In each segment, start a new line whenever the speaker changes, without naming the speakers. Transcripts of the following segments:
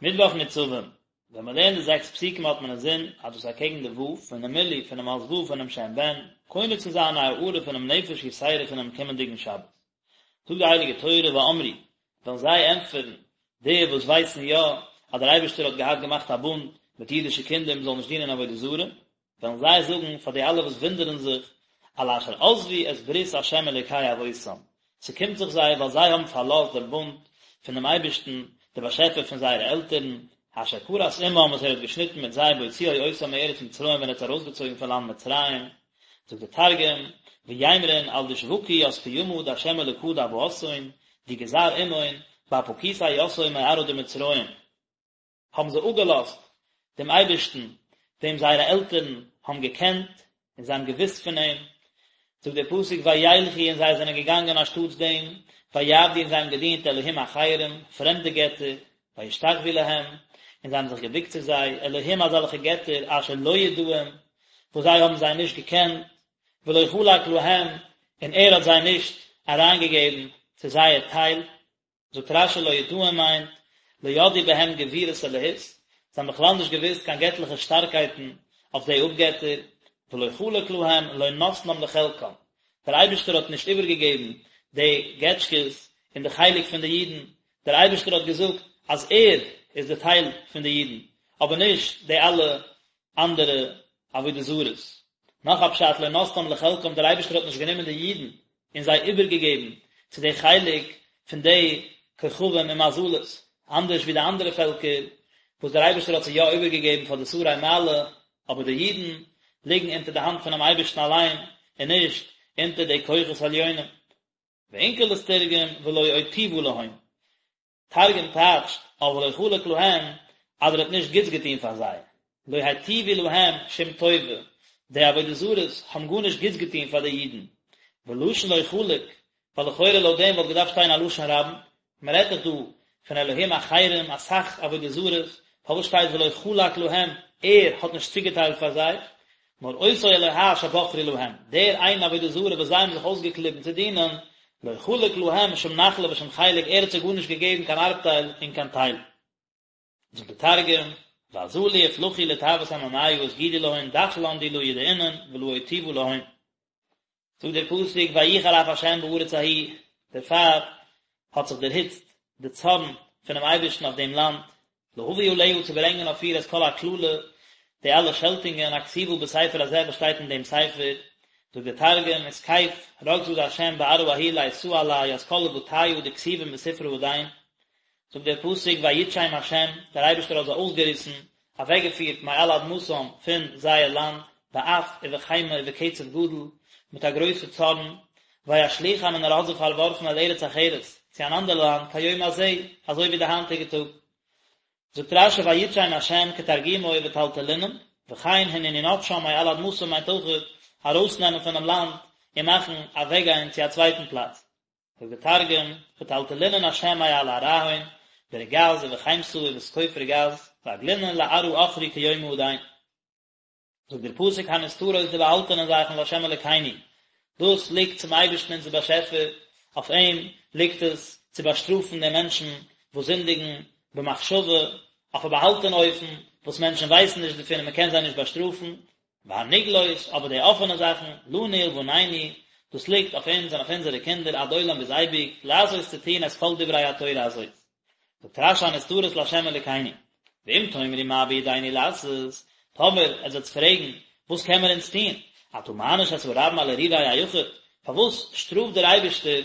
מיטוואך ניצבים, ווען מען לערנט די זעקס פסוקים האט מען אינזין אז דאס איז אקעגן די ו' פונעם מילוי פונעם אות ו' פונעם שם בן, קונה צו זיין א הארה פונעם נפש יתירה פונעם קומענדיגן שבת. זאגט די הייליגע תורה ואמרו, וועלן זיי ענטפערן, די וואס ווייסן יא אז דער אייבערשטער האט געהאט געמאכט א בונד מיט אידישע קינדער מען זאל נישט דינען עבודה זרה, וועלן זיי זאגן פאר די אלע וואס וואונדערן זיך, על אשר עזבו את ברית ה' אלוקי אבותם, ס'קומט זיך זיי ווייל זיי האבן פארלאזט דעם בונד פון דעם אייבערשטן, דער באשעפער פון זייערע עלטערן, אשר כרת עמם וואס ער האט געשניטן מיט זיי בהוציאו אותם מארץ מצרים ווען ער האט זיי ארויסגעצויגן פון לאנד מצרים. זאגט דער תרגום, ויימרון על דשבקו ית קימא דה' אלקא דאבהתהון, די גזר עמהון, באפקיתיה יתהון מארעא דמצרים. האבן זיי אפגעלאזט דעם אייבערשטן וועם זייערע עלטערן האבן געקענט און זיי האבן געוואוסט פון אים, זאגט דער פסוק וילכו און זיי זענען געגאנגען אנשטאטס דעם, ויעבדו און זיי האבן געדינט אלהים אחרים, פרעמדע געטער, וישתחוו להם, און זיי האבן זיך געבוקט צו זיי, אלהים אזעלכע געטער אשר לא ידעום, וואס זיי האבן זיי נישט געקענט, ולא חלק להם, און ער האט זיי נישט אריינגעגעבן צו זייער טייל. זאגט רש"י לא ידעום מיינט, לא ידעו בהם גבורות אלהות, זיי האבן בכלל נישט געוואוסט קיין געטליכע שטארקייטן אויף די אפגעטער, ולא חלק להם לא נתנם לחלקם, דער אייבערשטער האט נישט איבערגעגעבן די געטשקעס אין די חלק פון די אידן, דער אייבערשטער האט געזאגט אז ער איז די טייל פון די אידן, אבער נישט די אלע אנדערע עבודה זרות. נאך א פשט לא נתנם לחלקם דער אייבערשטער האט נישט גענומען די אידן און זיי איבערגעגעבן צו די חלק פון די כוכבים און מזלות, אנדערש ווי די אנדערע פעלקער וואס דער אייבערשטער האט זיי יא איבערגעגעבן פאר די שרי מעלה, אבער די אידן ליגן אונטער די האנט פונעם אייבערשטן אליין און נישט אונטער די כוחות עליונים. ואונקלוס תרגם ולא אוטיבא להון. תרגום טייטשט אויף ולא חלק להם אז ער האט נישט גוטס געטון פאר זיי, לא היטיבו להם שום טובה, די עבודה זרות האבן גארנישט גוטס געטון פאר די אידן, ולשון לא חלק, ווייל לכאורה לויט דעם וואלט געדארפט שטיין א לשון רבים, מען רעדט דאך דא פון אלהים אחרים אסאך עבודה זרות, פארוואס שטייט ולא חלק להם, ער האט נישט צוגעטיילט פאר זיי, נאר אותו אלוה שבחרו להם, דער איין עבודה זרה וואס זיי האבן זיך אויסגעקליבן צו דינען, לא חלק להם שום נחלה ושום חלק, ער האט זיי גארנישט געגעבן קיין ארבטייל און קיין טייל. זאגט דער תרגום, ואזלו אפלחו לטעות עממיא וסגידו להון דחלן די לא ידעינון ולא אוטיבא להון. זאגט דער פסוק ויחר אף ה' בארץ ההיא, דערפאר האט זיך דערהיצט די צארן פונעם אייבערשטן אויף דעם לאנד, להביא עליה צו ברענגען אויף איר את כל הקללה, די אלע שעלטונגען הכתובה בספר הזה וואס שטייט אין דעם ספר, זאגט דער תרגום, ותקיף רגזא דה' בארעא ההיא לאיתאה עלה ית כל לבטיא דכתיבין בספרא הדין, זאגט דער פסוק ויטשם ה', דער אייבערשטער האט זיי אויסגעריסן, אוועקגעפירט מעל אדמתם פון זייער לאנד, באף ובחימה ובקצף גדול, מיט א גרויסע צארן, וישליכם און ער האט זיי פארווארפן אל ארץ אחרת, צו אן אנדער לאנד, כיום הזה, אזוי ווי די היינטיגע טאג. זאגט רש"י ויטשם ה' כתרגומו וטלטלינן, וכן הנני נוטשם מעל אדמתם מיינט אויכעט ארויסנעמען פונעם לאנד און מאכן אוועקגיין צו א צווייטן פלאץ. זאגט דער תרגום, וטלטלינן השם מעל ארעהון, ברגז ובחימתא ובתקוף רגז, ואגלינן לארעא אכרי כיומא הדין. זאגט דער פסוק הנסתרות די באהאלטענע זאכן לה' אלקינו, דאס ליגט צום אייבערשטן אונזער באשעפער, אויף אים ליגט עס צו באשטראפן די מענטשן וואס זינדיגן במחשבה, אויף א באהאלטענע אופן וואס מענטשן ווייסן נישט דערפון און מען קען זיי נישט באשטראפן, והנגלות, אבער די אפענע זאכן, לנו ולבנינו, דאס ליגט אויף אונז און אויף אונזערע קינדער עד עולם ביז אייביג, לעשות צו טון את כל דברי התורה הזאת. זאגט רש"י הנסתרות לה' אלוקינו, ואם תאמרו מה בידינו לעשות, טאמער עטס וועטס פרעגן, וואס קען מען אונז טון, אתה מעניש את הרבים על הרהורי היחיד, פארוואס שטראפט דער אייבערשטער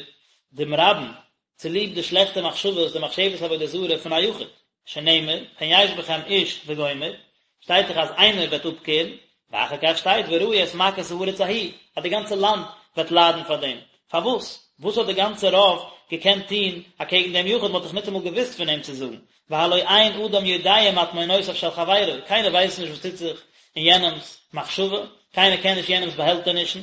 דעם רבים צוליב די שלעכטע מחשבות, די מחשבת עבודה זרה פון א יחיד, שנאמר, פן יש בכם איש וגומר, שטייט דאך אז איינער וועט אפקערן, ואחר כך שטייט וראו את מכות הארץ ההיא, אז די גאנצע לאנד וועט ליידן פאר דעם, פארוואס? וואס האט די גאנצע רוב געקענט טון אקעגן דעם יחיד, מען האט דאך ניטאמאל געוואוסט פון אים צו זאגן, והלא אין אדם יודע מטמונותיו של חברו, קיינער ווייסט נישט וואס טוט זיך אין יענעמ'ס מחשבה, קיינער קען נישט יענעמ'ס באהעלטענישן.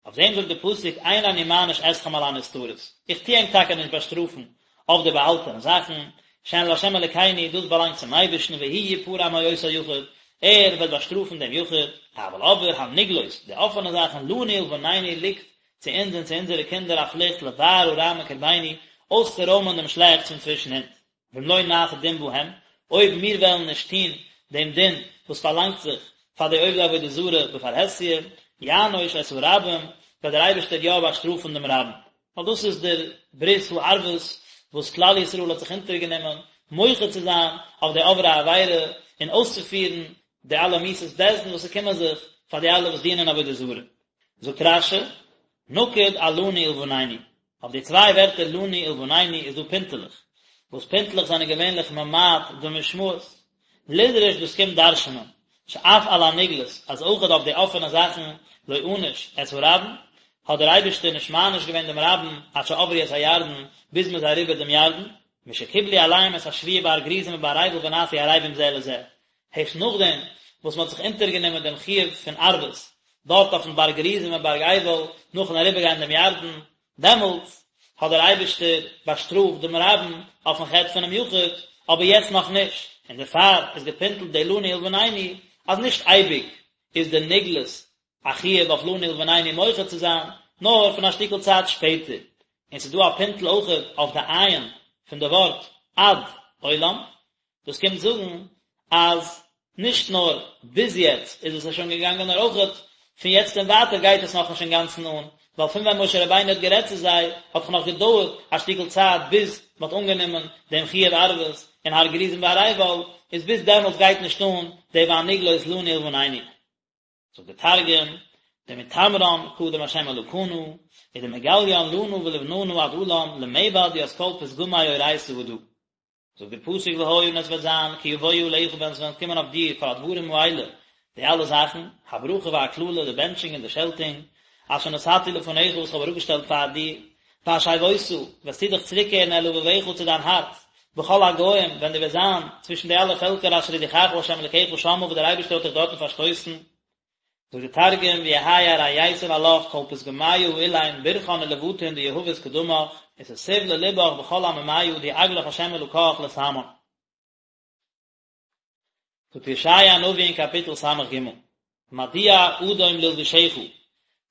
אויף דעם זאגט דער פסוק אין אני מעניש אתכם על הנסתרות, איך טו ענק טאקע נישט באשטראפן אויף די באהאלטענע זאכן, שהן לה' אלקינו, דאס באלאנגט צום אייבערשטן והוא יפרע מאותו יחיד, ער וועט באשטראפן דעם יחיד, אבל אבער הנגלות, די אפענע זאכן, לנו ולבנינו ליגט צו אונז און צו אונזערע קינדער א פליכט לבער הרע מקרבינו, אויסצורוימען דעם שלעכטס פון צווישן אונז. ואם לא נעשה דין בהם, אויב מיר וועלן נישט טון דעם דין וואס פארלאנגט זיך פאר די עובדי עבודה זרה בפרהסיא, יענוש את הרבים, וועט דער אייבערשטער יא באשטראפן דעם רבים. ווייל דאס איז דער ברית הערבות וואס כלל ישראל האט זיך אונטערגענומען מוחה צו זיין אויף די עוברי עבירה און אויסצופירן די אלע מיתות בית דין וואס ס'קומען זיך פאר די אלע וואס דינען עבודה זרה. זאגט רש"י, נקוד על לנו ולבנינו, אויף די צוויי ווערטער לנו ולבנינו איז דא פינטעלעך, וואס פינטעלעך זענען געווענליך ממעט די משמעות, לדרוש דאס קומט דרש'נען, שאף על הנגלות, אז אויכעט אויף די אפענע זאכן, לא ענש את הרבים, האט דער אייבערשטער נישט מעניש געווען דעם רבים עד שעברו את הירדן, ביז מען איז אריבער דעם ירדן, משקיבלו עליהם את השבועה בהר גריזים ובהר עיבל ונעשו ערבים זה לזה, הערשט נאכדעם וואס מען האט זיך אונטערגענומען דעם חיוב פון ערבות דארט אויפן בארג גריזים און בארג עיבל נאכן אריבערגיין דעם ירדן, דעמאלטס האט דער אייבערשטער באשטראפט דעם רבים אויפן חטא פונעם יחיד, אבער יעצט נאך נישט, און דערפאר איזגעפינטלט די לנו ולבנינו אז נישט אייביג איז די נגלות א חיוב אויף לנו ולבנינו מוחה צו זיין, נאר פון א שטיקל צייט שפעטער, און ס'איז דא א פינטל אויכעט אויף די עין פון די ווארט עד עולם, דאס קומט זאגן אז נישט נאר ביז יעצט איז עס שוין געגאנגען נאר אויכעט פון יעצט און ווייטער גייט עס נאכנישט אינגאנצן אן, ווייל פון ווען משה רבינו האט גערעדט צו זיי האט דאך נאך געדויערט א שטיקל צייט ביז מען האט אנגענומען דעם חיוב ערבות אין הר גריזים והר עיבל, איז ביז דעמאלטס גייט נישט אן די והנגלות לנו ולבנינו. זאגט דער תרגום, דמתמרן קדם ה' אלקנא, ודמגליין לנא ולבננא עד עלם למעבד ית כל פתגמי אורייתא הדא. זאגט דער פסוק והיה און עס וועט זיין כי יבואו עליך ווען עס וועלן קומען אויף דיר כל הדברים האלה, די אלע זאכן, הברכה והקללה, די בענטשונג און די שעלטונג, אשר נתתי לפניך וואס איך האב אראפגעשטעלט פאר דיר, והשבות, וועסטו דיך צוריקקערן אל לבבך צו דיין הארץ, בכל הגוים, ווען דו וועסט זיין צווישן די אלע פעלקער אשר הדיחך ה' אלקיך שמה וואס דער אייבערשטער האט דיך דארטן פארשטויסן. זאגט דער תרגום, ויהי ארייתון עלך כל פתגמיא האלין ברכאן ולבטין דיהבת קדמך, ותתוב ללבך בכל עממיא די עגלך ה' אלקך לתמן. זאגט ישעיה הנביא אין קאפיטל ס"ג, מדוע אדום ללבושך,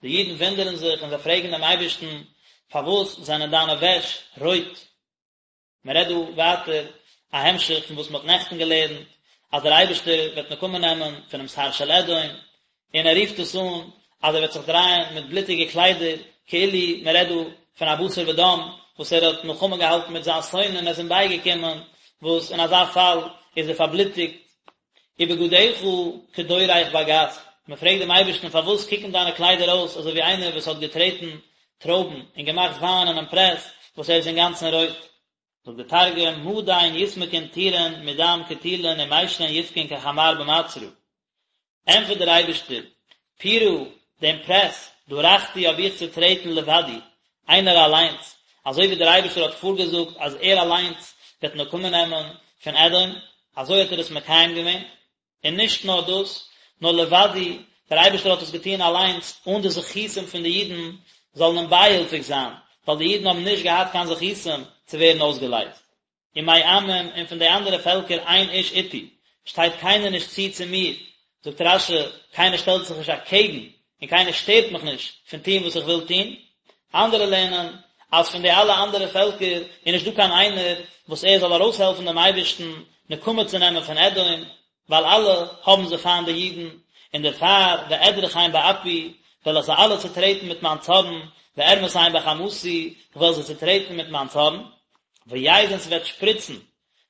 די אידן וואונדערן זיך און זיי פרעגן דעם אייבערשטן, פארוואס זענען דיינע וועש רויט? מען רעדט דא ווייטער א המשך פון וואס מען האט נעכטן געלערנט, אז דער אייבערשטער וועט נקמה נעמען פונעם שר של אדום, און ער רופט עס אן אז ער וועט זיך דרייען מיט בלוטיגע קליידער, כאילו מען רעדט דא פון א בשר ודם וואס ער האט מלחמה געהאלטן מיט זיין שונא און ער איז אים בייגעקומען, וואס אין אזא פאל איז ער פארבלוטיגט. ובגדיך כדורך בגת, מען פרעגט דעם אייבערשטן פארוואס קוקן דיינע קליידער אויס אזוי ווי איינער וואס האט געטרעטן טרויבן און געמאכט וויין אינעם פרעס וואס ער איז אינגאנצן רויט. זאגט דער תרגום, מדין יסמקון טורין מדם קטילין ומישרין יבכון כחמר במצרא. ענטפערט דער אייבערשטער, פורא, דעם פרעס, דרכתי האב איך צוטרעטן לבדי, איינער אליינס, אזוי ווי דער אייבערשטער האט פארגעזאגט אז ער אליינס וועט נקמה נעמען פון אדום, אזוי האט ער עס מקיים געווען, און נישט נאר דאס, נאר לבדי, דער אייבערשטער האט עס געטון אליינס, אן די זכותים פון די אידן זאלן אים בייהילפיג זיין, ווייל די אידן האבן נישט געהאט קיין זכותים צו ווערן אויסגעלייזט. ומעמים, און פון די אנדערע פעלקער אין איש אתי, שטייט קיינער נישט צו צו מיר, זאגט רש"י, קיינער שטעלט זיך נישט אקעגן, און קיינער שטערט מיך נישט פון טון וואס איך וויל טון. אנדערע לערנען, אז פון די אלע אנדערע פעלקער איז נישט דא קיין איינער וואס ער זאל ארויסהעלפן דעם אייבערשטן נקמה צו נעמען פון אדום, ווייל אלע האבן זיי פיינט די אידן, און דערפאר ואדרכם באפי, וועל איך זיי אלע צוטרעטן מיט מיין צארן, וארמסם בחמתי, איך וועל זיי צוטרעטן מיט מיין צארן, ויז און ס'וועט שפריצן,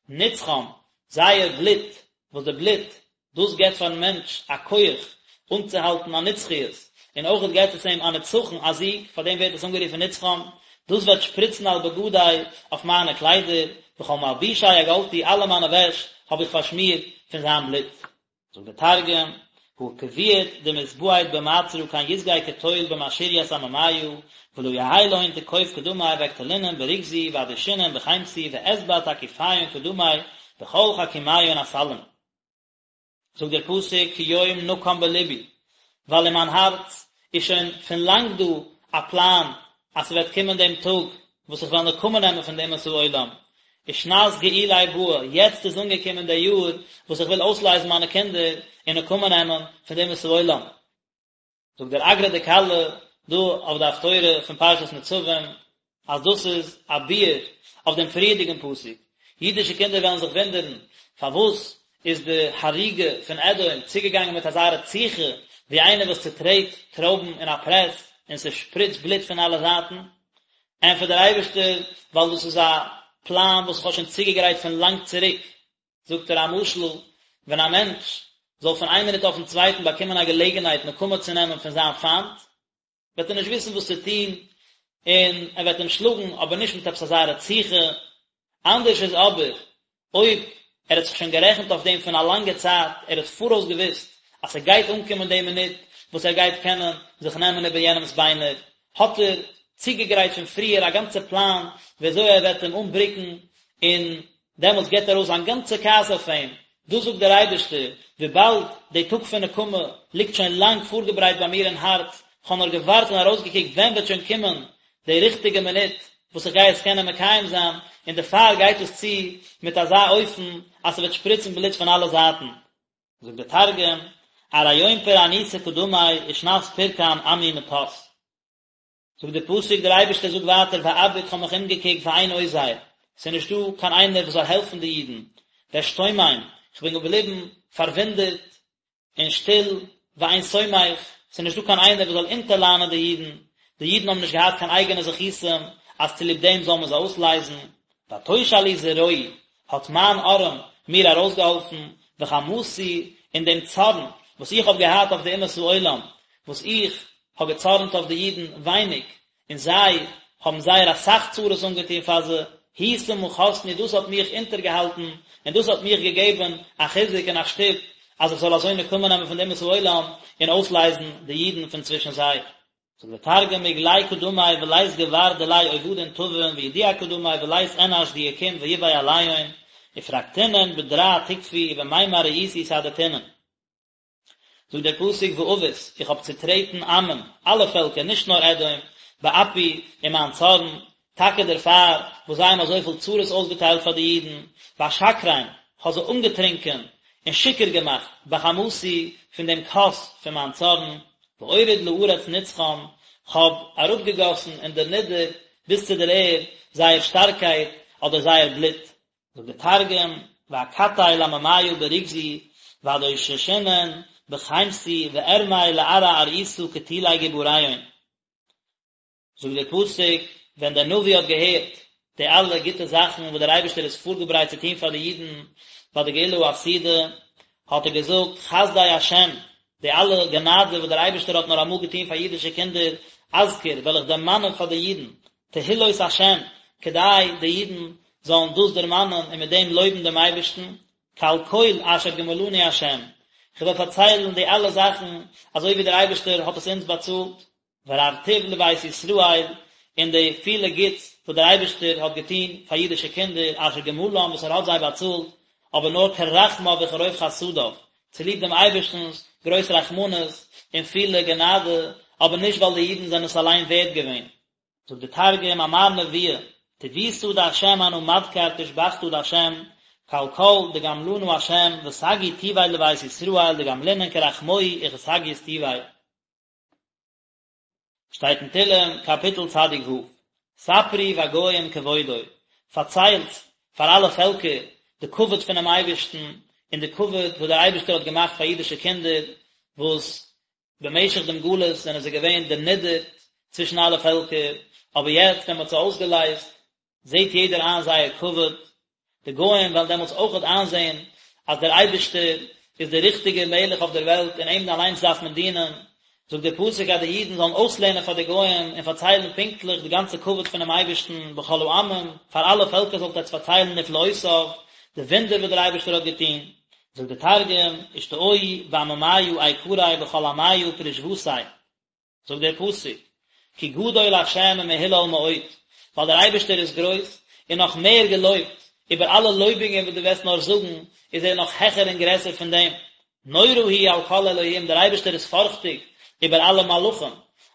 נצחם, זייער בלוט, וואס די בלוט, דאס געבט פארן מענטש א כח אנצוהאלטן א נצחיות, און אויכעט געבט עס אים א נצחון, א זיג, פאר דעם ווערט עס אנגערופן נצחם, דאס וועט שפריצן על בגדי, אויף מיינע קליידער, וכל מלבושי אגלתי, אלע מיינע וועש האב איך פארשמירט פון זיין בלוט. זאגט דער תרגום, הא כביעט דמתבעט במעצרא כן יסגי כטול במשריית עממיא, ולא יהי להון תקוף קדמי ואקטלינון ברוגזי ואדישינון בחמתי ואתבע תקיפיון קדמי בכל חכימיון אסלין. זאגט דער פסוק כי יום נקם בלבי, ווייל אין מיין הארץ איז שוין פון לאנג דא א פלאן אז ס'וועט קומען דעם טאג וואס איך וועל נקמה נעמען פון די אומות העולם, ושנת גאולי באה, יעצט איז אנגעקומען דער יאר וואס איך וויל אויסלייזן מיינע קינדער און נקמה נעמען פון די אומות העולם. זאגט דער אגרא דכלה דא אויף די הפטורה פון פרשת נצבים אז דאס איז א ביאור אויף דעם פריערדיגן פסוק. אידישע קינדער וועלן זיך וואונדערן, פארוואס איז די הריגה פון אדום צוגעגאנגען מיט אזא רציחה, ווי איינער וואס צוטרעט טרויבן אין א פרעס און ס'שפריצט בלוט פון אלע זייטן? ענטפערט דער אייבערשטער, ווייל דאס איז א פלאן וואס איך האב שוין צוגעגרייט פון לאנג צוריק. זאגט ער א משל, ווען א מענטש זאל פון איין מינוט אויפן צווייטן באקומען א געלעגנהייט נקמה צו נעמען פון זיין פיינט, וועט ער נישט וויסן וואס צו טון, און ער וועט אים שלאגן, אבער נישט מיט עפעס אזא רציחה. אנדערש איז אבער אויב ער האט זיך שוין גערעכנט אויף דעם פון א לאנגע צייט, ער האט פאראויס געוואוסט אז ס'גייט אנקומען די מינוט וואס ער גייט קענען זיך נעמען איבער יענעמ'ס ביינער, האט ער צוגעגרייט פון פריער א גאנצע פלאן ווי אזוי ער וועט אים אנבריקן, און דעמאלטס גיבט ער ארויס זיין גאנצע כעס אויף אים. דאס זאגט דער אייבערשטער, וויבאלד די טאג פון נקמה ליגט שוין לאנג פארגעברייט ביי מיר אין הארץ, כ'האב נאר געווארט און ארויסגעקוקט ווען וועט שוין קומען די ריכטיגע מינוט וואס איך גיי עס קענען מקיים זיין, און דערפאר גייט עס צו מיט אזא אופן אז ס'וועט שפריצן בלוט פון אלע זייטן. זאגט דער תרגום, ארי יום פורענותא קדמי ושנת פורקן עמי מטת. זאגט דער פסוק, דער אייבערשטער זאגט ווייטער ואביט כ'האב מיך אומגעקוקט ואין עוזר, ס'איז נישטא קיין איינער וואס זאל העלפן די אידן, ואשתומם, כ'בין געבליבן פארוואונדערט און שטיל, ואין סומך, ס'איז נישטא קיין איינער וואס זאל אונטערלאנען די אידן, די אידן האבן נישט געהאט קיין אייגענע זכותים אז צוליב דעם זאל מען זיי אויסלייזן, ותושע לי זרועי, האט מיין ארעם מיר ארויסגעהאלפן, וחמתי, און דעם צארן וואס איך האב געהאט אויף די אומות העולם, וואס איך האב געצארנט אויף די אידן ווייניג, און זיי האבן זייער אסאך צרות אנגעטון פאר זיי, היא סמכתני, דאס האט מיך אונטערגעהאלטן, און דאס האט מיך געגעבן א חיזוק און א שטופ, אז איך זאל אזוי נקמה נעמען פון די אומות העולם, און אויסלייזן די אידן פון צווישן זיי. זאגט דער תרגום, מגלי קדמי ולית גבר דיליה עבדין טבין וידיע קדמי ולית אנש דיקים ויבעי עליהון, ופרקתינון בדרע תקפי ובמימר רעיתו סהדתינון. זאגט דער פסוק ואבוס, איך האב צוטרעטן עמים, אלע פעלקער, נישט נאר אדום, באפי, אין מיין צארן, טאקע דערפאר וואס זיי האבן אזויפיל צרות אויסגעטיילט פאר די אידן, ואשכרם, כ'האב זיי אנגעטרונקען און שיכור געמאכט, בחמתי, פון דעם כוס פון מיין צארן, ואוריד לארץ נצחם, כ'האב אראפגעגאסן און דערנידערט ביז צו דער ערד זייער שטארקייט אדער זייער בלוט. זאגט דער תרגום, ואקטל לעממיא ברוגזי, ואדוששינון בחמתי, וארמי לארעא ארעותא קטולי גבריהון. זאגט דער פסוק, ווען דער נביא האט געהערט די אלע גוטע זאכן וואס דער אייבערשטער איז פארגעברייט צו טון פאר די אידן ביי די גאולה העתידה, האט ער געזאגט, חסדי השם, די אלע גענאדע וואס דער אייבערשטער האט נאר אמאל געטון פאר אידישע קינדער, אזכיר, וועל איך דערמאנען פאר די אידן, תהילות השם, כדי די אידן זאלן דאס דערמאנען און מיט דעם לויבן דעם אייבערשטן, כעל כל אשר גמלנו השם, איך וועל פארציילן די אלע זאכן אזוי ווי דער אייבערשטער האט עס אונז באצאלט. ורב טוב לבית ישראל, און די פילע גוטס וואס דער אייבערשטער האט געטון פאר אידישע קינדער אשר גמלם וואס ער האט זיי באצאלט, אבער נאר כרחמיו וכרוב חסדיו, צוליב דעם אייבערשטנ'ס גרויס רחמנות און פילע גענאדע, אבער נישט ווייל די אידן זענען עס אליין ווערד געווען. זאגט דער תרגום, אמר נביא, טיבותא דהשם אנא מדכר תושבחתא דהשם, כעל כל דגמלנא השם, וסגי טוביה לבית ישראל דגמלינון כרחמוהי וכסגיות טוביה. שטייט אין תהלים קאפיטל צדיק ו', ספרו בגוים כבודו, פארציילט פאר אלע פעלקער די כבוד פונעם אייבערשטן און די כבוד וואס דער אייבערשטער האט געמאכט פאר אידישע קינדער וואס במשך דעם גלות זענען זיי געווען דערנידערט צווישן אלע פעלקער, אבער יעצט ווען מען האט זיי אויסגעלייזט זעט יעדער איין זייער כבוד, די גוים וועלן דעמאלטס אויכעט איינזען אז דער אייבערשטער איז דער ריכטיגער מלך אויף דער וועלט און אים אליינס דארף מען דינען, זאגט דער פסוק אז די אידן זאלן אויסלערנען פאר די גוים און פארציילן פונקטליך די גאנצע כבוד פונעם אייבערשטן בכל העמים, פאר אלע פעלקער זאלט עטץ פארציילן נפלאותיו, די וואונדער וואס דער אייבערשטער האט געטון. זאגט דער תרגום, אשתעו בעממיא איקריה בכל עמיא פרישותיה. זאגט דער פסוק, כי גדול ה' ומהולל מאוד, ווייל דער אייבערשטער איז גרויס און נאך מער געלויבט, איבער אלע לויבונגען וואס דו וועסט נאר זאגן, איז ער נאך העכער און גרעסער פון דעם. נורא הוא על כל אלהים, דער אייבערשטער איז פארכטיג איבער אלע מלאכים,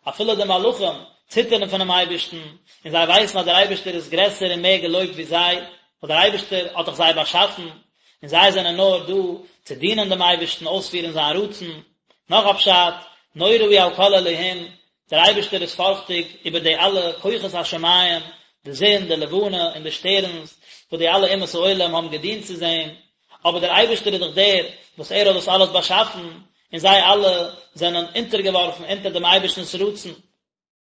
אפילו די מלאכים ציטערן פונעם אייבערשטן, און זיי ווייסן אז דער אייבערשטער איז גרעסער און מער געלויבט ווי זיי, ווייל דער אייבערשטער האט דאך זיי באשאפן, און זיי זענען נאר דא צו דינען דעם אייבערשטן, אויספירן זיין רצון. נאך א פשט, נורא הוא על כל אלהים, דער אייבערשטער איז פארכטיג איבער די אלע כוחות השמים. די זון, די לבנה און די שטערנס, וואס די אלע אומות העולם האבן געדינט צו זעם, אבער דער אייבערשטער איז דאך דער וואס ער האט דאס אלעס באשאפן, און זיי אלע זענען אונטערגעווארפן אונטער דעם אייבערשטנ'ס רצון.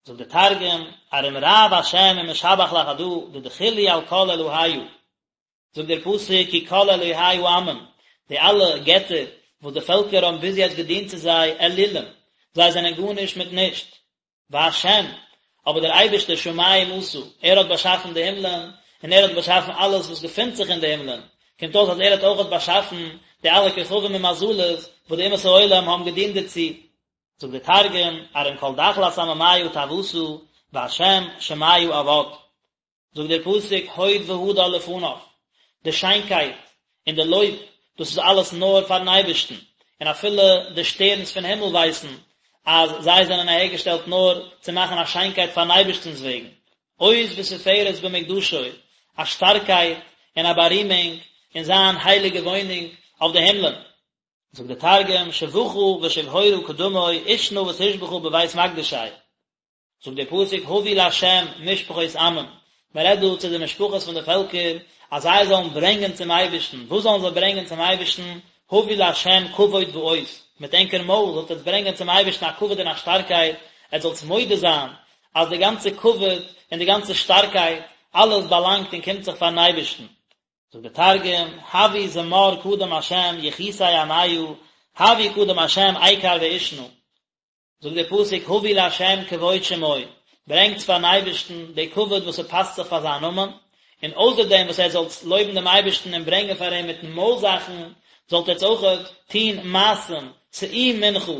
זאגט דער תרגום, ארום רב השם ומשבח לחדא דדחיל להו על כל אלהיא. זאגט דער פסוק כי כל אלהי העמים, די אלע געטער וואס די פעלקער האבן ביז יעצט געדינט צו זיי, אלילים, זיי זענען גארנישט מיט נישט, והשם, אבער דער אייבערשטער שמים עשה, ער האט באשאפן די הימלען, און ער האט באשאפן אלעס וואס געפינט זיך אין די הימלען, קומט אויס אז ער האט אויכעט באשאפן די אלע כוכבים און מזלות וואס די אומות העולם האבן געדינט דערצו. זאגט דער תרגום, ארום כל דחלת עממיא טעותא, והשם שמיא עבד. זאגט דער פסוק הוד והדר לפניו, די שיינקייט און די לויב, דאס איז אלעס נאר פארן אייבערשטן, און אפילו די שטערנס פון הימל ווייסן אז זיי זענען אהערגעשטעלט נאר צו מאכן א שיינקייט פארן אייבערשטנ'ס וועגן, עוז ותפארת במקדשו, א שטארקייט און א בארימונג אין זיין הייליגע וואוינונג אויף די הימלען. זאגט דער תרגום, שבחא ושבהורא קדמוי, עושנא ותושבחא בבית מקדשיה. זאגט דער פסוק הבו לה' משפחות עמים, מען רעדט דא צו די משפחות פון די פעלקער אז זיי זאלן ברענגען צום אייבערשטן, וואס זאלן זיי ברענגען צום אייבערשטן, הבו לה' כבוד ועוז, מיט ענקער מויל זאלט עטס ברענגען צום אייבערשטן א כבוד און א שטארקייט, עטס זאלטס מודה זיין אז די גאנצע כבוד און די גאנצע שטארקייט, אלעס באלאנגט און קומט זיך פארן אייבערשטן. זאגט דער תרגום, הבו זמר קדם ה' יחוסי עמיא, הבו קדם ה' איקר ועושנא. זאגט דער פסוק הבו לה' כבוד שמו, ברענגטס פארן אייבערשטן די כבוד וואס ס'פאסט זיך פאר זיין נאמען, און אויסער דעם וואס עטס זאלטס לויבן דעם אייבערשטן און ברענגען פאר אים מיטן מויל זאכן, זאלט עטס אויכעט טון מעשים, שאו מנחה,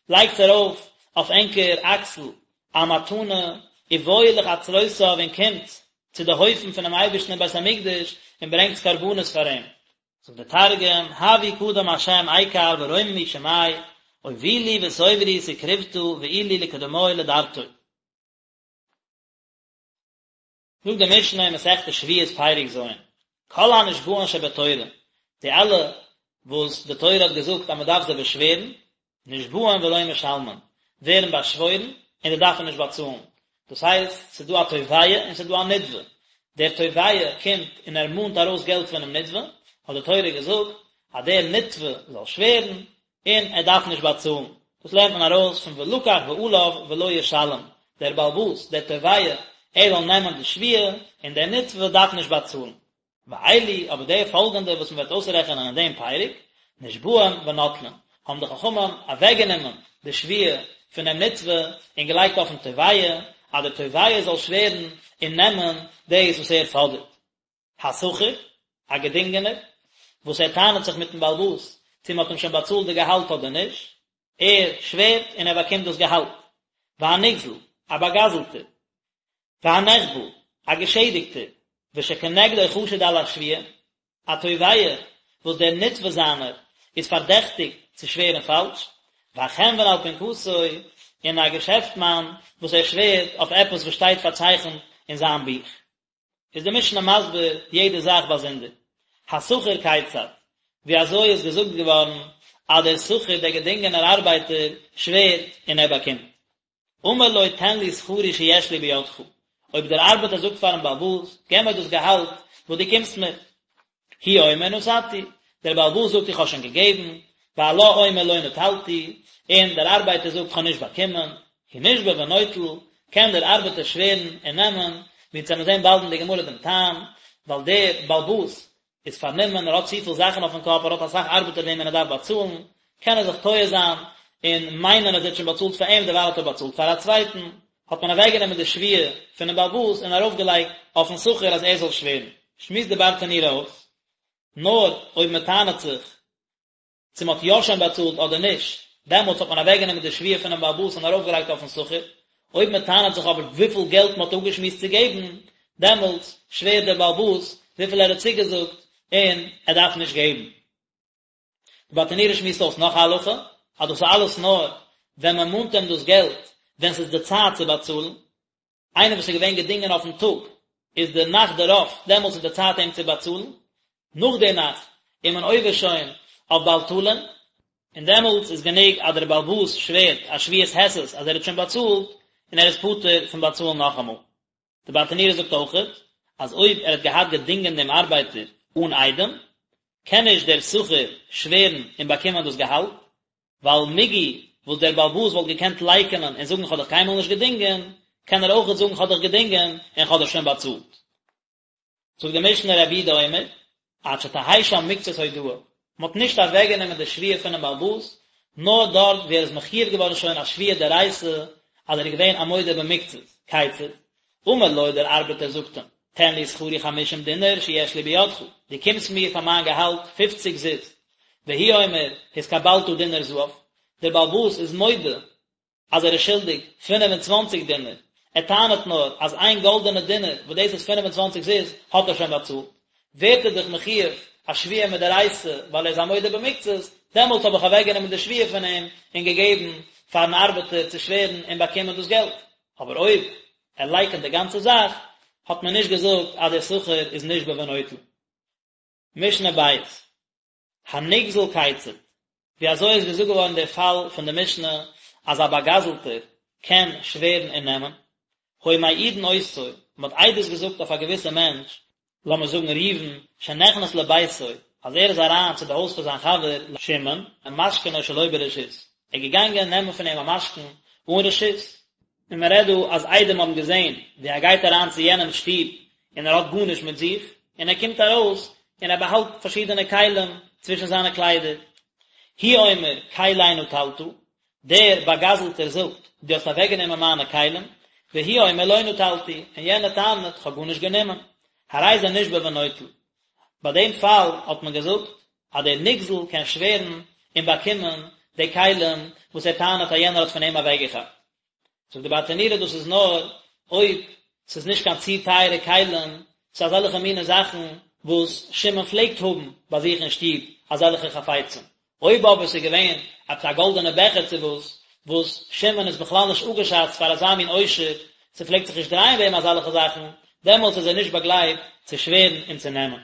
לייגטס ארויף אויף ענקער אקסל א מתנה, ובואו לחצרותיו און קומטס צו די הויפן פונעם אייבערשטן אין בית המקדש און ברענגטס קרבנות פאר אים. זאגט דער תרגום, הבו קדם השם איקר ורוממו שמיה, אובילו ותוברו תקרובתא ועולו לקדמוי לדרתוי. זאגט די משנה אין מסכת שבועות פרק ז', כל הנשבעין שבתורה, די אלע וואס די תורה האט געזאגט אז מען דארף זיי באשווערן, נשבעין ולא משלמין, ווערן באשוואוירן און זיי דארפן נישט באצאלן, דאס הייסט, ס'איז דא א תובע און ס'איז דא א נתבע, דער תובע קומט און ער מאנט ארויס געלט פונעם נתבע, האט די תורה געזאגט אז דער נתבע זאל שווערן און ער דארף נישט באצאלן, דאס לערנט מען ארויס פון ולקח בעליו ולא ישלם, דער בעל הבית, דער תובע, ער זאל נעמען די שבועה און דער נתבע דארף נישט באצאלן. ואלו, אבער די פאלגענדע וואס מען וועט אויסרעכענען אין דעם פרק, נשבעים ונוטלין, האבן די חכמים אוועקגענומען די שבועה פונעם נתבע און געלייגט אויפן תובע, אז דער תובע זאל שווערן און נעמען דאס וואס ער פאדערט. השכיר, א געדינגענער, וואס ער טענה'ט זיך מיטן בעל הבית צו מען האט אים שוין באצאלט די געהאלט אדער נישט, ער שווערט און ער באקומט דאס געהאלט. והנגזל, א באגזלטער, והנחבל, א געשעדיגטער, ושכנגדו חשוד על השבועה, א תובע וואס דער נתבע זיינער איז פארדעכטיגט צו שווערן פאלש, והחנון על פנקסו, און א געשעפטמאן וואס ער שווערט אויף עפעס וואס שטייט פארצייכנט אין זיין בוך. איז די משנה מסביר יעדע זאך באזונדער. השכיר כיצד, ווי אזוי איז געזאגט געווארן אז דער שכיר, דער געדינגענער ארבייטער, שווערט און ער באקומט. אמר לו תן לי שכרי שיש לי בידך, אויב דער ארבעטער זאגט פארן בעל הבית, געב מיר דאס געהאלט וואס דו קומסט מיר. הוא אומר נתתי, דער בעל הבית זאגט איך האב שוין געגעבן, והלה אומר לא נטלתי, און דער ארבייטער זאגט איך האב נישט באקומען, הוא נשבע ונוטל, קען דער ארבעטער שווערן און נעמען, ווי אונז וועלן זען באלד אין די גמרא דעם טעם, ווייל דער בעל הבית איז פארנומען, ער האט צופיל זאכן אויפן קאפ, ער האט אסאך ארבעטער וועמען ער דארף באצאלן, קען ער זיך טועה זיין און מיינען אז ער האט שוין באצאלט פאר אים, דערווייל האט ער באצאלט פאר א צווייטן, האט מען אוועקגענומען די שבועה פונעם בעל הבית און ארויפגעלייגט אויפן שכיר אז ער זאל שווערן. שמועסט די ברטנורא אויס, נאר אויב מען טענה'ט זיך צו מען האט יא שוין באצאלט אדער נישט, דעמאלטס האט מען אוועקגענומען די שבועה פונעם בעל הבית און ארויפגעלייגט אויפן שכיר, אויב מען טענה'ט זיך אבער וויפיל געלט מען האט אפגעשמועסט צו געבן, דעמאלטס שווערט דער בעל הבית וויפיל ער האט צוגעזאגט און ער דארף נישט געבן. די ברטנורא שמועסט אויס נאך א הלכה, אז דאס איז אלעס נאר ווען מען מאנט אים דאס געלט ווען ס'איז די צייט צו באצאלן, איינער וואס איז געווען געדינגען אויפן טאג, איז די נאכט דערויף, דעמאלטס איז די צייט אים צו באצאלן, נאך די נאכט איז מען עובר שוין אויף בל תלין, און דעמאלטס איז גענוג אז דער בעל הבית שווערט א שבועת היסת אז ער האט שוין באצאלט, און ער איז פטור פון באצאלן נאכאמאל. די ברטנורא זאגט אויכעט אז אויב ער האט געהאט געדינגען דעם ארבייטער אן עדים, קען נישט דער שכיר שווערן און באקומען דאס געהאלט, ווייל מיגו וואס דער בעל הבית וואלט געקענט לייקענען און זאגן כ'האב דיך קיינמאל נישט געדינגען, קען ער אויכעט זאגן כ'האב דיך געדינגען און כ'האב דיך שוין באצאלט. זאגט די משנה רבי יהודה אומר, עד שתהא שם מקצת הודאה, מען האט נישט אוועקגענומען די שבועה פונעם בעל הבית, נאר דארט וואו ער איז מחויב געווארן שוין א שבועה דאורייתא אז ער איז געווען א מודה במקצת, כיצד? אמר לו דער ארבעטער זאגט אים, תן לי שכרי חמישים דינר שיש לי בידך, דו קומסט מיר פאר מיין געהאלט פופציג זוז, והוא אומר, התקבלת דינר זהב, דער בעל הבית איז מודה אז ער איז שולדיג 25 דינר, ער טענה'ט נאר אז איין גאלדענע דינר וואס דאס איז 25 זוז האט ער שוין באצאלט, ווערט ער דאך מחויב א שבועה מדאורייתא ווייל ער איז א מודה במקצת, דעמאלטס האב איך אוועקגענומען די שבועה פון אים און געגעבן פארן ארבעטער צו שווערן און באקומען דאס געלט. אבער אויב ער לייקענט די גאנצע זאך, האט מען נישט געזאגט אז דער שכיר איז נשבע ונוטל. משנה בית. הנגזל כיצד, ווי אזוי איז געזאגט געווארן דער פאל פון די משנה אז א באגזלטער קען שווערן און נעמען? היו מעידין אותו, מען האט עדות געזאגט אויף א געוויסע מענטש, לאמיר זאגן ראובן, שנכנס לביתו, אז ער איז אריין צו די הויז פון זיין חבר שמעון, ומשכנו שלא ברשות, ער איז געגאנגען נעמען פון אים א משכון אן רשות, און מען רעדט דא אז עדים האבן געזען ווי ער גייט אריין צו יענעמ'ס שטוב און ער האט גארנישט מיט זיך, און ער קומט ארויס און ער באהאלט פארשידענע כלים צווישן זיינע קליידער. הוא אומר כלי נטלת, דער באגזלטער זאגט, דו האסט אוועקגענומען מיינע כלים, והוא אומר לא נטלתי, און יענער טענה'ט, כ'האב גארנישט גענומען. הרי זה נשבע ונוטל. ביי דעם פאל האט מען געזאגט אז דער נגזל קען שווערן און באקומען די כלים וואס ער טענה'ט אז יענער האט פון אים אוועקגעכאפט. זאגט די ברטנורא דאס איז נאר אויב ס'איז נישט קיין צו טייערע כלים, ס'איז אזעלכע מיני זאכן וואס שמעון פלעגט האבן ביי זיך אין שטוב אזעלכע חפצים, אויב אבער ס'איז געווען עפעס א גאלדענע בעכער צו וואס, וואס שמעון איז בכלל נישט אפגעשאצט פאר אזא מין עושר, ס'פלעגט זיך נישט דרייען ביי אים אזעלכע זאכן, דעמאלטס איז ער נישט באגלייבט צו שווערן און צו נעמען.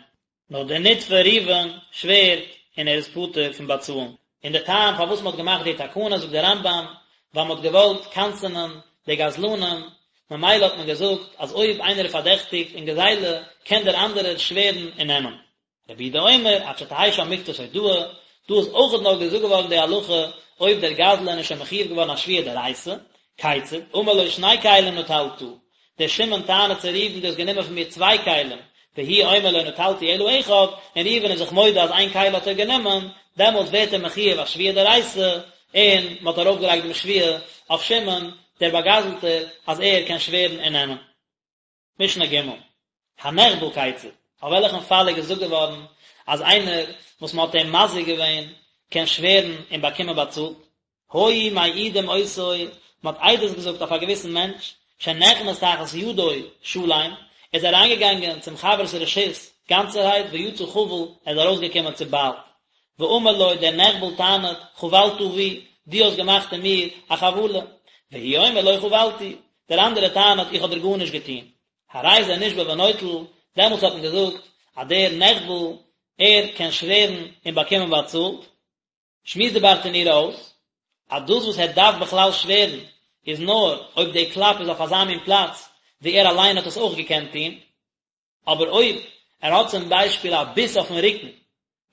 נאר דער נתבע ראובן שווערט און ער איז פטור פון באצאלן. און דער טעם פארוואס מען האט געמאכט די תקנה זאגט דער רמב"ם, ווייל מען האט געוואלט קנס'ענען די גזלנים, ממילא האט מען געזאגט אז אויב איינער איז פארדעכטיגט אין גזילה קען דער אנדערער שווערן און נעמען. רבי יהודה אומר עד שתהא שם מקצת הודאה, דא איז אויכעט נאר געזאגט געווארן די הלכה אויב דער גזלן איז שוין מחויב געווארן א שבועה דאורייתא, כיצד, אמר לו שני כלים נטלת, דער שמעון טענה'ט צו ראובן דו האסט גענומען פון מיר צוויי כלים, והוא אומר לא נטלתי אלא אחד, און ראובן איז זיך מודה אז איין כלי האט ער גענומען, דעמאלטס ווערט ער מחויב א שבועה דאורייתא, און מען האט ארויפגעלייגט דעם שבועה אויף שמעון, דער באגזלטער, אז ער קען שווערן און נעמען. משנה ג', הנחבל כיצד, אויף וועלכן פאל איז געזאגט געווארן אז איינער וואס מען האט אים מזיק געווען קען שווערן און באקומען באצאלט? היו מעידים אותו, מען האט עדות געזאגט אויף א געוויסן מענטש, שנכנס תחת ידו שלם, ער איז אריינגעגאנגען צום חבר'ס רשות גאנצערהייט ויצא חבול, ער איז ארויסגעקומען צוביילט. ואמר לו, דער נחבל טענה'ט, חבלת בי, דו האסט געמאכט אין מיר א חבלה. והוא אומר לא חבלתי, דער אנדערער טענה'ט איך האב דיר גארנישט געטון. הרי זה נשבע ונוטל, דעמאלטס האט מען געזאגט אז דער נחבל, ער קען שווערן און באקומען באצאלט. שמועסט די ברטנורא אויס, אז דאס וואס ער דארף בכלל שווערן איז נאר אויב די קלאפ איז אויף אזא מין פלאץ וואו ער אליין האט עס אויך געקענט טון, אבער אויב ער האט צום ביישפיל א ביס אויפן רוקן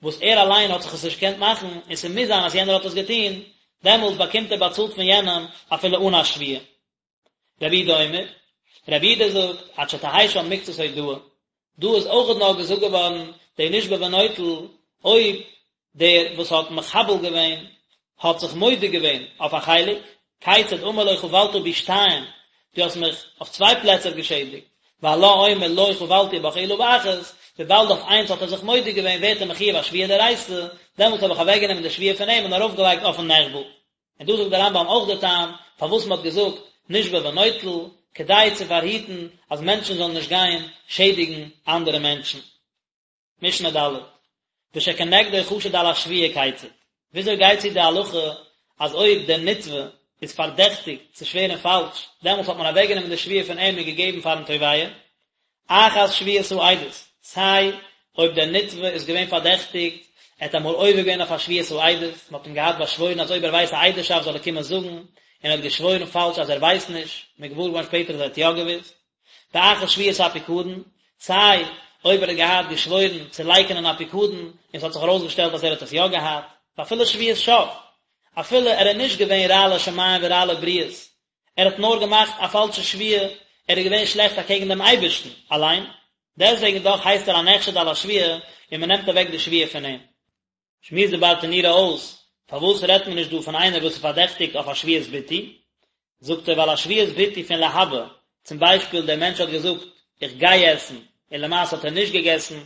וואס ער אליין האט זיך עס נישט געקענט מאכן און ס'מוז זיין אז יענער האט עס געטון, דעמאלטס באקומט ער באצאלט פון יענעם אפילו אן א שבועה. רבי יהודה אומר, רבי יהודה זאגט, עד שתהא שם מקצת הודאה, דא איז אויכעט נאר געזאגט געווארן די נשבע ונוטל אויב דער וואס האט מחבל געווען האט זיך מודה געווען אויף א חלק, כיצד אמר לו חבלת בי שתיים, דו האסט מיך אויף צוויי פלעצער געשעדיגט, והלה אומר לא חבלתי בך אלא באחת, וויבאלד אויף איינס האט ער זיך מודה געווען ווערט ער מחויב א שבועה דאורייתא, דעמאלטס האב איך אוועקגענומען די שבועה פון אים און ארויפגעלייגט אויפן נחבל. און דא זאגט דער רמב"ם אויך די טעם פארוואס מען האט געזאגט נשבע ונוטל, כדי צו פארהיטן אז מענטשן זאלן נישט גיין שעדיגן אנדערע מענטשן. משנה ד', ושכנגדו חשוד על השבועה כיצד, וויאזוי גייט צו די הלכה אז אויב דער נתבע איז פארדעכטיגט צו שווערן פאלש, דעמאלטס האט מען אוועקגענומען די שבועה פון אים און געגעבן פארן תובע, אחת שבועת העדות, סיי אויב דער נתבע איז געווען פארדעכטיגט, ער האט אמאל עובר געווען אויף א שבועת העדות, מען האט אים געהאט באשוואוירן אז אויב ער ווייסט א עדות'שאפט זאל ער קומען זאגן, און ער האט געשוואוירן פאלש אז ער ווייסט נישט, מען איז געוואר געווארן שפעטער אז ער האט יא געוואוסט. באחר שבועת הפיקדון, סיי אויב ער האט געהאט געשוואוירן צו לייקענען א פיקדון און ס'האט זיך ארויסגעשטעלט אז ער האט עס יא געהאט, ואפילו שבועת שוא, אפילו ער איז נישט געווען רע לשמים ורע לבריות, ער האט נאר געמאכט א פאלשע שבועה, ער איז געווען שלעכט אקעגן דעם אייבערשטן אליין, דעסטוועגן דאך הייסט ער א נחשד על השבועה און מען נעמט אוועק די שבועה פון אים. שמועסט די ברטנורא אויס, פארוואס רעדט מען נישט דא פון איינער וואס איז פארדעכטיגט אויף א שבועת ביטוי? זאגט ער ווייל א שבועת ביטוי פון להבא, צום ביישפיל דער מענטש האט געזאגט איך גיי עסן און למעשה האט ער נישט געגעסן,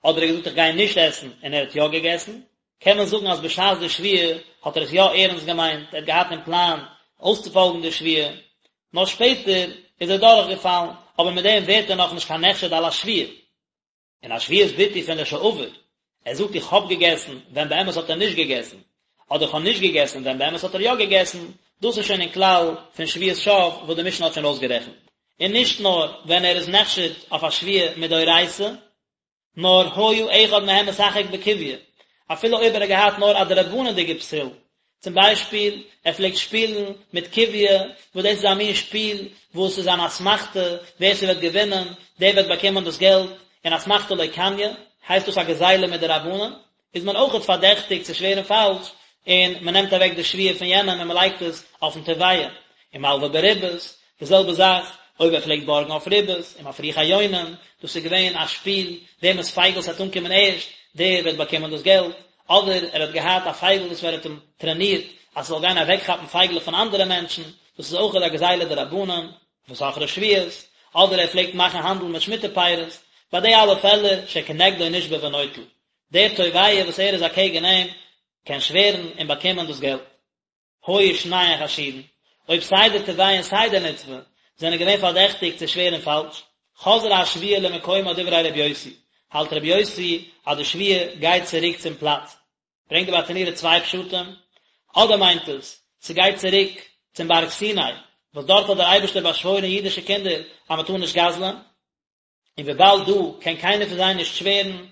אדער ער האט געזאגט איך גיי נישט עסן און ער האט יא געגעסן, קען מען זאגן אז בשעת די שבועה האט ער עס יא ערנסט געמיינט, ער האט געהאט אין פלאן אויסצופאלגן די שבועה, נאר שפעטער איז ער דורכגעפאלן, אבער מיט דעם ווערט ער נאכנישט קיין נחשד על השבועה. און א שבועת ביטוי פון לשעבר, ער זאגט איך האב געגעסן ווען באמת האט ער נישט געגעסן, אדער איך האב נישט געגעסן ווען באמת האט ער יא געגעסן, דאס איז שוין אין כלל פון שבועת שוא וואס די משנה האט שוין אויסגערעכנט. און נישט נאר ווען ער איז נחשד אויף א שבועה מדאורייתא, נאר היה אחד מהם משחק בקוביא, אפילו אויב ער האט געהאט נאר א דרבנן'דיגע פסול, צום ביישפיל, ער פלעגט שפילן מיט קוביא, וואס דאס איז א מין שפיל וואס איז אן אסמכתא, ווער ס'וועט געווינען, דער וועט באקומען דאס געלט, און אסמכתא לא קניא, הייסט דאס א גזילה מדרבנן, איז מען אויכעט פארדעכטיגט צו שווערן פאלש, און מען נעמט אוועק די שבועה פון יענעם און מען לייגט עס אויפן תובע, ומלווה בריבית, די זעלבע זאך אויב ער פלעגט בארגן אויף ריבית, ומפריחי יונים, דאס איז געווען א שפיל, וועמענס פייגל ס'וועט אנקומען ערשט, דער וועט באקומען דאס געלט, אדער ער האט געהאט א פייגל וואס ער האט אים טרענירט אז ס'זאל גיין אוועקכאפן פייגלעך פון אנדערע מענטשן, דאס איז אויכעט א גזילה דרבנן, וסוחרי שביעית, אדער ער פלעגט מאכן האנדל מיט שמיטה פירות, ביי די אלע פעלער שכנגדו נשבע ונוטל, דער תובע וואס ער איז אקעגן אים קען שווערן און באקומען דאס געלט. היו שניהן חשודין, אויב סיי דער תובע און סיי דער נתבע זענען געווען פארדעכטיגט צו שווערן פאלש, חזרה השבועה למקומה דברי ר' יוסי, האלט ר' יוסי אז די שבועה גייט צוריק צום פלאץ. ברענגט די ברטנורא צוויי פשטים, אדער מיינט עס, ס'גייט צוריק צום בארג סיני, וואס דארט האט דער אייבערשטער באשוואוירן אידישע קינדער אז מ'טאר נישט גזל'ען, און וויבאלד דא קען קיינער פון זיי נישט שווערן,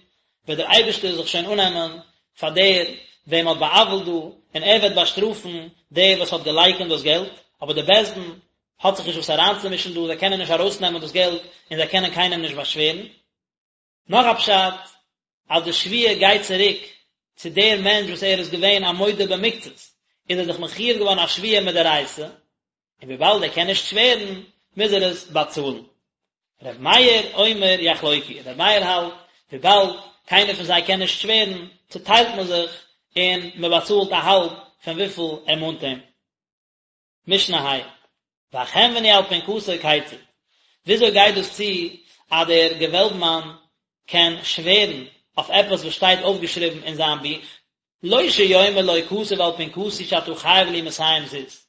וועט דער אייבערשטער זיך שוין אננעמען פאר דער וועם מ'האט בא'עוול'ט דא, און ער וועט באשטראפן דער וואס האט געלייקענט דאס געלט, אבער דער בית דין האט זיך נישט וואס אריינצומישן דא, זיי קענען נישט ארויסנעמען דאס געלט, און זיי קענען קיינעם נישט באשווערן. נאך א פשט, אז די שבועה גייט צוריק צו דער מענטש וואס ער איז געווען א מודה במקצת, איז ער זיך מחויב געווארן א שבועה מדאורייתא, און וויבאלד ער קען נישט שווערן, מוז ער עס באצאלן. ר' מאיר אומר יחלוקו, ר' מאיר האלט, וויבאלד קיינער פון זיי קען נישט שווערן, צוטיילט מען זיך און מען באצאלט א האלב פון וויפיל ער מאנט אים. משנה ה', והחנווני על פנקסו כיצד, וויאזוי גייט דאס צו אז דער געוועלבמאן קען שווערן אויף עפעס וואס שטייט אויפגעשריבן אין זיין בוך, לא שיאמר לו כתוב על פנקסי שאתה חייב לי מאתים זוז,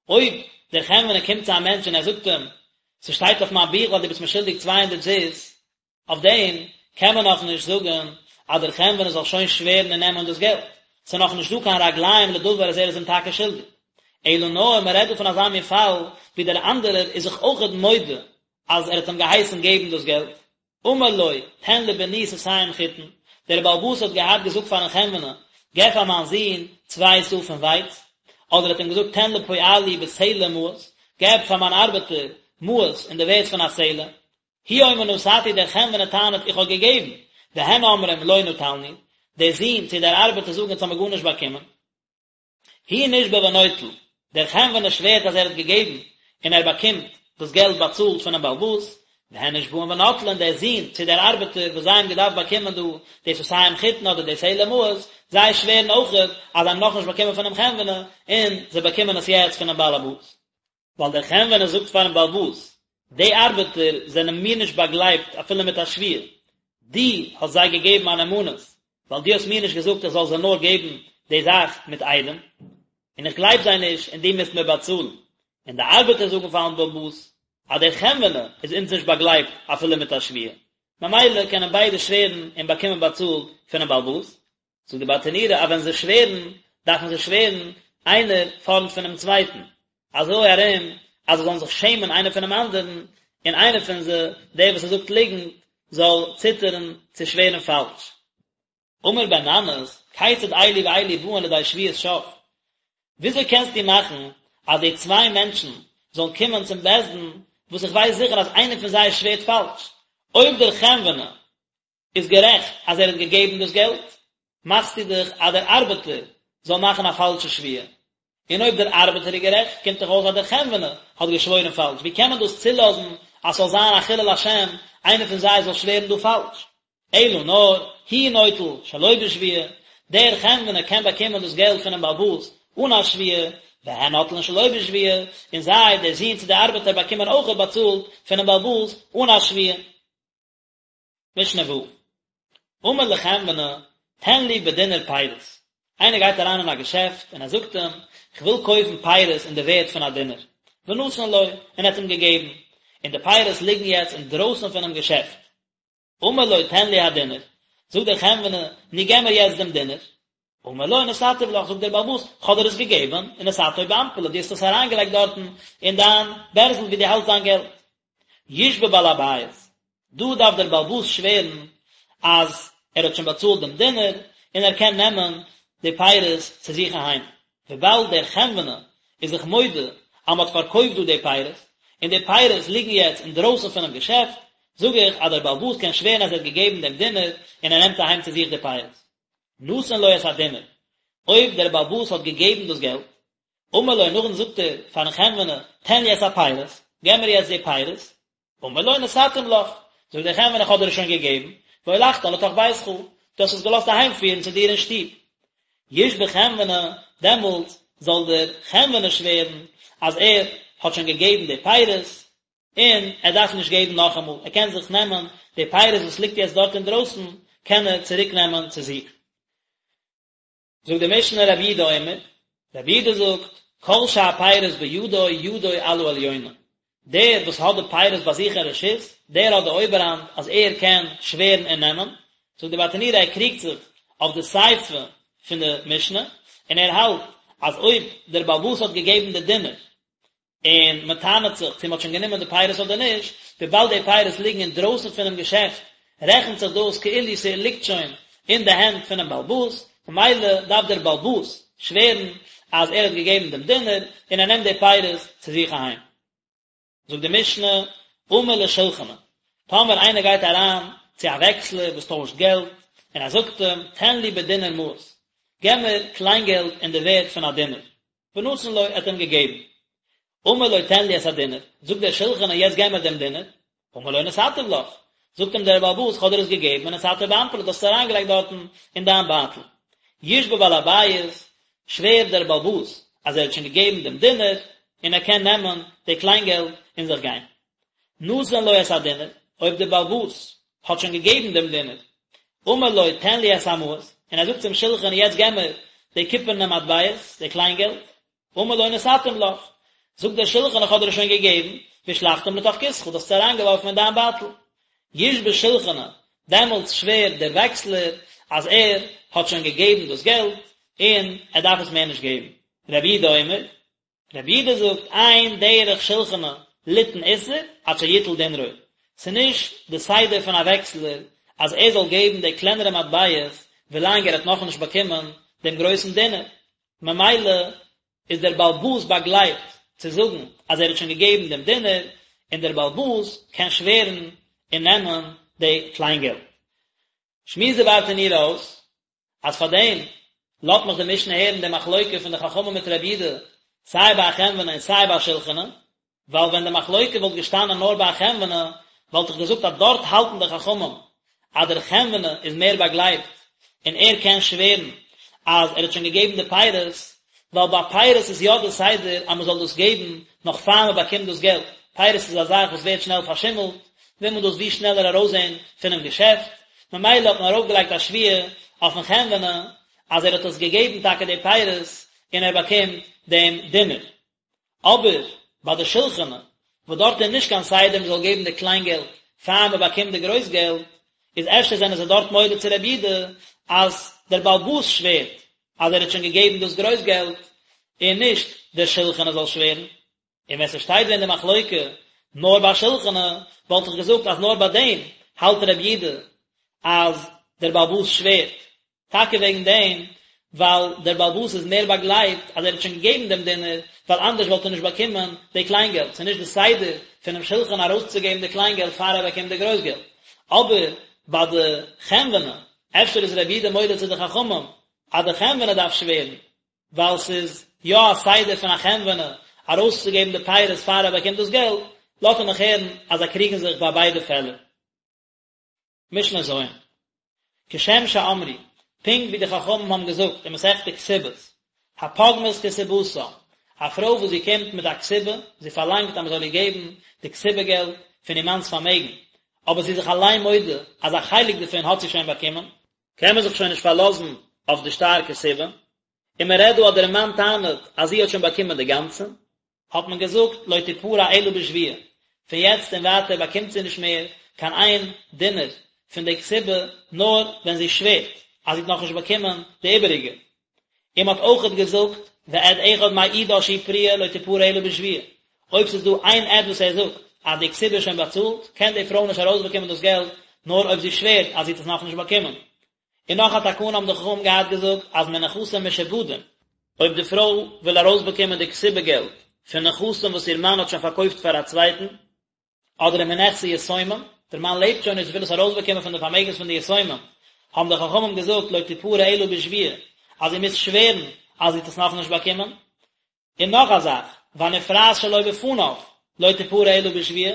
אויב דער חנווני קומט צו א מענטש און ער זאגט אים, ס'שטייט אויף מיין בוך אז דו ביסט מיר שולדיג 200 זוז, אויף דעם קען מען נאכנישט זאגן אז דער חנווני זאל שוין שווערן און נעמען דאס געלט, ס'איז נאכנישט דא קיין רגליים לדבר אז ער איז אים טאקע שולדיג. אלא נאר מען רעדט דא פון אזא מין פאל ווי דער אנדערער איז זיך אויכעט מודה אז ער האט אים געהייסן געבן דאס געלט. אמר לו, תן לבני סאתים חיטין, דער בעל הבית האט געהאט געזאגט פארן חנווני, געב פאר מיין זון צוויי סאה פון ווייץ, אדער האט אים געזאגט תן לפועלי בסלע מעות, געב פאר מיין ארבעטער מעות אין די ווערד פון א סלע. הוא אומר נתתי דער חנווני טענה'ט איך האב געגעבן, והן אומרים לא נטלנו, דער זון צו דער ארבעטער זאגן אונז האמיר גארנישט באקומען. הוא נשבע ונוטל, דער חנווני שווערט אז ער האט געגעבן און ער באקומט דאס געלט באצאלט פונעם בעל הבית, והן נשבעין ונוטלין, דער זון צו דער ארבעטער וואס זיי האבן געדארפט באקומען דא די סאתים חיטין אדער די סלע מעות, זיי שווערן אויכעט אז זיי האבן נאכנישט באקומען פונעם חנווני און זיי באקומען עס יעצט פונעם בעל הבית. ווייל דער חנווני זאגט פארן בעל הבית, די ארבעטער זענען מיר נישט באגלייבט אפילו מיט א שבועה, דו האסט זיי געגעבן א נאמנות, ווייל דו האסט מיר נישט געזאגט איך זאל זיי נאר געבן די זאך מיט עדים, און איך גלייב זיי נישט און דו מוזט מיר באצאלן. און די ארבעטער זאגן פארן בעל הבית, אז דער חנווני איז אונז נישט באגלייבט אפילו מיט א שבועה, ממילא קענען ביידע שווערן און באקומען באצאלט פונעם בעל הבית. זאגט די ברטנורא אז ווען זיי שווערן דארפן זיי שווערן איינער פארנט פונעם צווייטן, אזוי ארום אז זיי זאלן זיך שעמען איינער פונעם אנדערן, און איינער פון זיי, דער וואס ער זאגט ליגנט, זאל ציטערן צו שווערן פאלש. אמר בן ננס, כיצד אלו ואלו באין לידי שבועת שוא? וויאזוי קענסטו מאכן אז די צוויי מענטשן זאלן קומען צום בית דין. וואס איך ווייס זיכער אז איינער פון זיי שווערט פאלש, אויב דער חנווני איז גערעכט אז ער האט געגעבן דאס געלט, מאכסטו דאך אז דער ארבעטער זאל מאכן א פאלשע שבועה, און אויב דער ארבעטער איז גערעכט, קומט דאך אויס אז דער חנווני האט געשוואוירן פאלש, ווי קען מען דאס צולאזן אז ס'זאל זיין א חילול השם, איינער פון זיי זאל שווערן דא פאלש? אלא נאר, הוא נוטל שלא בשבועה, דער חנווני קען באקומען דאס געלט פונעם בעל הבית אן א שבועה, והן נוטלין שלא בשבועה, און זיי, דער זון צו דער ארבעטער, באקומען אויכעט באצאלט פונעם בעל הבית אן א שבועה. משנה ו', אמר לחנווני, תן לי בדינר פירות, איינער גייט אריין אין א געשעפט און ער זאגט אים, איך וויל קויפן פירות אין די ווערד פון א דינר, ונתן לו, און ער האט אים געגעבן, און די פירות ליגן יעצט אינדרויסן פונעם געשעפט. אמר לו תן לי הדינר, זאגט דער חנווני, נו געב מיר יעצט דעם דינר. אמר לו נתתיו לך, זאגט דער בעל הבית, כ'האב דיר עס געגעבן, ונתתו באנפלי, דו האסט עס אריינגעלייגט דארטן אין דיין בערזל וואו דו האלטסט דיין געלט. ישבע בעל הבית, דא דארף דער בעל הבית שווערן אז ער האט שוין באצאלט דעם דינר און ער קען נעמען די פירות צו זיך אהיים, וויבאלד דער חנווני איז זיך מודה אז מען האט פארקויפט דא די פירות, און די פירות ליגן יעצט אינדרויסן פונעם געשעפט, זאג איך אז דער בעל הבית קען שווערן אז ער האט געגעבן דעם דינר און ער נעמט אהיים צו זיך די פירות. נתן לו את הדינר, אויב דער בעל הבית האט געגעבן דאס געלט, אמר לו נאכדעם זאגט ער פארן חנווני, תן לי את הפירות, געב מיר יעצט די פירות, אמר לו נתתים לך, זאגט דער חנווני איך האב דיר עס שוין געגעבן, והולכתן לתוך ביתך, דו האסט עס געלאזט אהיימפירן צו דיר אין שטוב. ישבע חנווני, דעמאלט זאל דער חנווני שווערן אז ער האט שוין געגעבן די פירות, און ער דארף נישט געבן נאכאמאל, ער קען זיך נעמען די פירות וואס ליגט יעצט דארט אינדרויסן, קען ער צוריק נעמען צו זיך. זאגט די משנה רבי יהודה אומר, רבי יהודה זאגט, כל שהפירות בידו ידו על העליונה, דער וואס האט די פירות ביי זיך אין רשות, דער האט די אויבערהאנט אז ער קען שווערן און נעמען, זאגט די ברטנורא ער קריגט זיך אויף די סיפא פון די משנה, און ער האלט אז אויב דער בעל הבית האט געגעבן די דינר און מען טענה'ט זיך צו מען האט שוין גענומען די פירות אדער נישט, וויבאלד די פירות ליגן אינדרויסן פונעם געשעפט רעכנט זיך דאס כאילו ס'ליגט שוין אין די הענט פונעם בעל הבית, ממילא דארף דער בעל הבית שווערן אז ער האט געגעבן דעם דינר און ער נעמט די פירות צו זיך אהיים. זאגט די משנה, אמר לשולחני, טאמער איינער גייט אריין צו א וועקסלער וואס טוישט געלט, און ער זאגט אים, תן לי בדינר מעות, געב מיר קליינגעלט אין די ווערד פון א דינר, ונתן לו, ער האט אים געגעבן. אמר לו תן לי את הדינר, זאגט דער שולחני יעצט געב מיר דעם דינר, אמר לו נתתיו לך, זאגט אים דער בעל הבית כ'האב דיר עס געגעבן ונתתו באנפלי דו האסט עס אריינגעלייגט דארטן אין דיין בייטל. ישבע בעל הבית, שווערט דער בעל הבית אז ער האט שוין געגעבן דעם דינר און ער קען נעמען די קליינגעלט און זיך גיין. נתן לו את הדינר, אויב דער בעל הבית האט שוין געגעבן דעם דינר, אמר לו תן לי את המעות, און ער זאגט צום שולחני יעצט געב מיר די קופערנע מטבעות, די קליינגעלט, אמר לו נתתים לך, זאגט דער שולחני איך האב דיר עס שוין געגעבן, והשלכתם לתוך כיסך, דו האסט עס אריינגעווארפן אין דיין בייטל. ישבע שולחני, דעמאלטס שווערט דער וועקסלער אז ער האט שוין געגעבן דאס געלט, און ער דארף עס מער נישט געבן. רבי יהודה אומר, רבי יהודה זאגט, אין דרך שולחני ליתן איסר עד שיטול דינרו, ס'איז נישט די סדר פון א וועקסלער אז ער זאל געבן די קלענערע מטבעות ווילאנג ער האט נאכנישט באקומען דעם גרויסן דינר, ממילא איז דער בעל הבית באגלייבט צו זאגן אז ער האט שוין געגעבן דעם דינר, און דער בעל הבית קען שווערן און נעמען די קליינגעלט. שמועסט די ברטנורא אויס אז פאר דעם לאזט מיך די משנה הערן די מחלוקה פון די חכמים מיט רבי יהודה סיי ביי א חנווני און סיי ביי א שולחני, ווייל ווען די מחלוקה וואלט געשטאנען נאר ביי א חנווני וואלט איך געזאגט אז דארט האלטן די חכמים אז דער חנווני איז מער באגלייבט און ער קען שווערן אז ער האט שוין געגעבן די פירות, ווייל ביי פירות איז יא די סדר אז מען זאל דאס געבן נאך פאר מען באקומט דאס געלט, פירות איז א זאך וואס ווערט שנעל פארשימלט, וויל מען דאס ווי שנעלער ארויסזען פונעם געשעפט, ממילא האט מען ארויפגעלייגט א שבועה אויפן חנווני אז ער האט עס געגעבן טאקע די פירות און ער באקומט דעם דינר. אבער ביי די שולחני, וואס דארט איז נישט קיין סדר מען זאל געבן די קליין געלט פאר מען באקומט די גרויס געלט, איז אפשר זענען זיי דארט מודה צו רבי יהודה אז דער בעל הבית שווערט אז ער האט שוין געגעבן דאס גרויס געלט און נישט דער שולחני זאל שווערן. און ווען ס'שטייט ווען די מחלוקה נאר ביי שולחני, וואלט איך געזאגט אז נאר ביי דעם האלט רבי יהודה אז דער בעל הבית שווערט, טאקע וועגן דעם. ווייל דער בעל הבית איז מער באגלייבט אז ער האט שוין געגעבן דעם דינר, ווייל אנדערש וואלט ער נישט באקומען די קליינגעלט, ס'איז נישט די סדר פונעם שלחן ארויסצוגעבן די קליינגעלט פאר ער באקומט די גרויסגעלט. אבער ביי די חנווני, אפשר איז רבי יהודה מודה צו די חכמים אז די חנווני דארף שווערן, ווייל ס'איז יא א סדר פון א חנווני ארויסצוגעבן די פירות פאר ער באקומט דאס געלט, לאזט ער מיך הערן אז זיי קריגן זיך ביי ביידע פעלער. משנה ז'. כשם שאמרו, פונקט ווי די חכמים האבן געזאגט אין מסכת כתובות, הפוגמת כתובתה, א פרוי וואס זי קומט מיט א כתובה, זי פארלאנגט אז מען זאל איר געבן די כתובה געלט פון איר מאנ'ס פארמעגן, אבער זי איז זיך אליין מודה אז א חלק דערפון האט זי שוין באקומען, קען מען זיך שוין נישט פארלאזן אויף די שטר כתובה, און מען רעדט דא אז דער מאן טענה'ט אז זי האט שוין באקומען די גאנצע, האט מען געזאגט לא תפרע אלא בשבועה, פון יעצט און ווייטער באקומט זי נישט מער קיין איין דינר פון די כתובה נאר ווען זי שווערט אז זי האט נאכנישט באקומען די איבעריגע. און מען האט אויכעט געזאגט ועד אחד מעידה שהיא פרועה לא תפרע אלא בשבועה, אויב ס'איז דא איין עד וואס ער זאגט אז די כתובה איז שוין באצאלט, קען די פרוי נישט ארויסבאקומען דאס געלט נאר אויב זי שווערט אז זי האט עס נאכנישט באקומען. און נאך א תקנה האבן די חכמים געהאט געזאגט אז מנכסים משועבדים, אויב די פרוי וויל ארויסבאקומען די כתובה געלט פון נכסים וואס איר מאן האט שוין פארקויפט פאר א צווייטן, אדער מנכסי יתומים, דער מאן לעבט שוין נישט זי וויל עס ארויסבאקומען פון די פארמעגנס פון די יתומים, האבן די חכמים געזאגט לא תפרע אלא בשבועה, אז זי מוז שווערן אז זי האט עס נאכנישט באקומען. און נאך א זאך, והנפרעת שלא בפניו לא תפרע אלא בשבועה,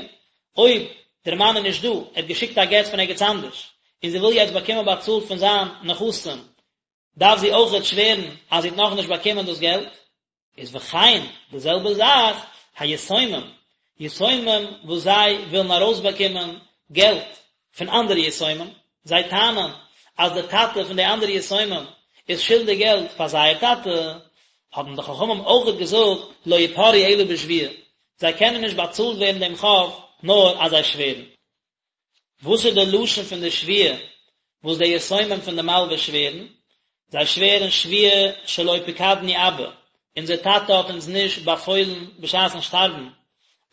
אויב דער מאן איז נישט דא, ער האט געשיקט א גט פון ערגעץ אנדערש, און זי וויל יעצט באקומען באצאלט פון זיין נכסים, דארף זי אויכעט שווערן אז זי האט נאכנישט באקומען דאס געלט. איז וכן, די זעלבע זאך, היתומים, יתומים וואס זיי ווילן ארויסבאקומען געלט פון אנדערע יתומים, זיי טענה'ן אז די טאטע פון די אנדערע יתומים איז שולדיג געלט פאר זייער טאטע, האבן די חכמים אויכעט געזאגט לא יפרעו אלא בשבועה, זיי קענען נישט באצאלט ווערן דעם חוב נאר אז זיי שווערן. וואס איז די לשון פון די שבועה וואס די יתומים פון די מלווה שווערן? זיי שווערן שבועה שלא פקדנו אבא, אונזער טאטע האט אונז נישט באפוילן בשעת'ן שטארבן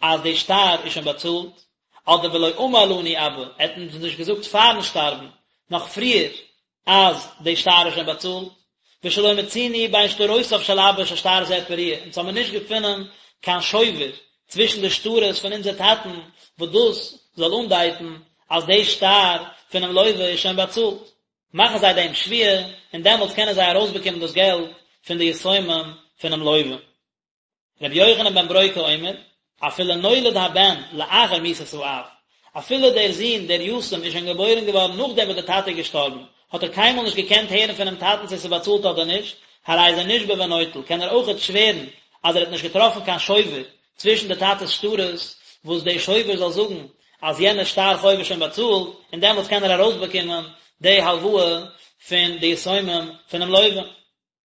אז די שטר איז שוין באצאלט, אדער ולא אמר לנו אבא, ער האט אונז נישט געזאגט פארן שטארבן, נאך פריער, אז די שטר איז שוין באצאלט, ושלא מצינו בין שטרותיו של אבא ששטר זה פרוע, אונז האמיר נישט געפונען קיין שובר צווישן די שטרות פון אונזער טאטן וואס דאס זאל אנדייטן אז די שטר פונעם לוה איז שוין באצאלט. מאכן זיי דעם שבועה, און דעמאלטס קענען זיי ארויסבאקומען דאס געלט פון די יתומים פונעם לוה. רבי יוחנן בן ברוקה אומר, אפילו נולד הבן לאחר מיתת האב, אפילו דער זון דער יתום איז שוין געבוירן געווארן נאכדעם וואס דער טאטע איז געשטארבן, האט ער קיינמאל נישט געקענט הערן פונעם טאטן צו עס איז באצאלט אדער נישט, הרי זה נשבע ונוטל, קען ער אויכעט שווערן אז ער האט נישט געטראפן קיין שובר צווישן די טאטע'ס שטרות, וואס דער שובר זאל זאגן אז יענער שטר חוב איז שוין באצאלט, און דעמאלטס קען ער ארויסבאקומען די הלוואה פון די יתומים פונעם לווה.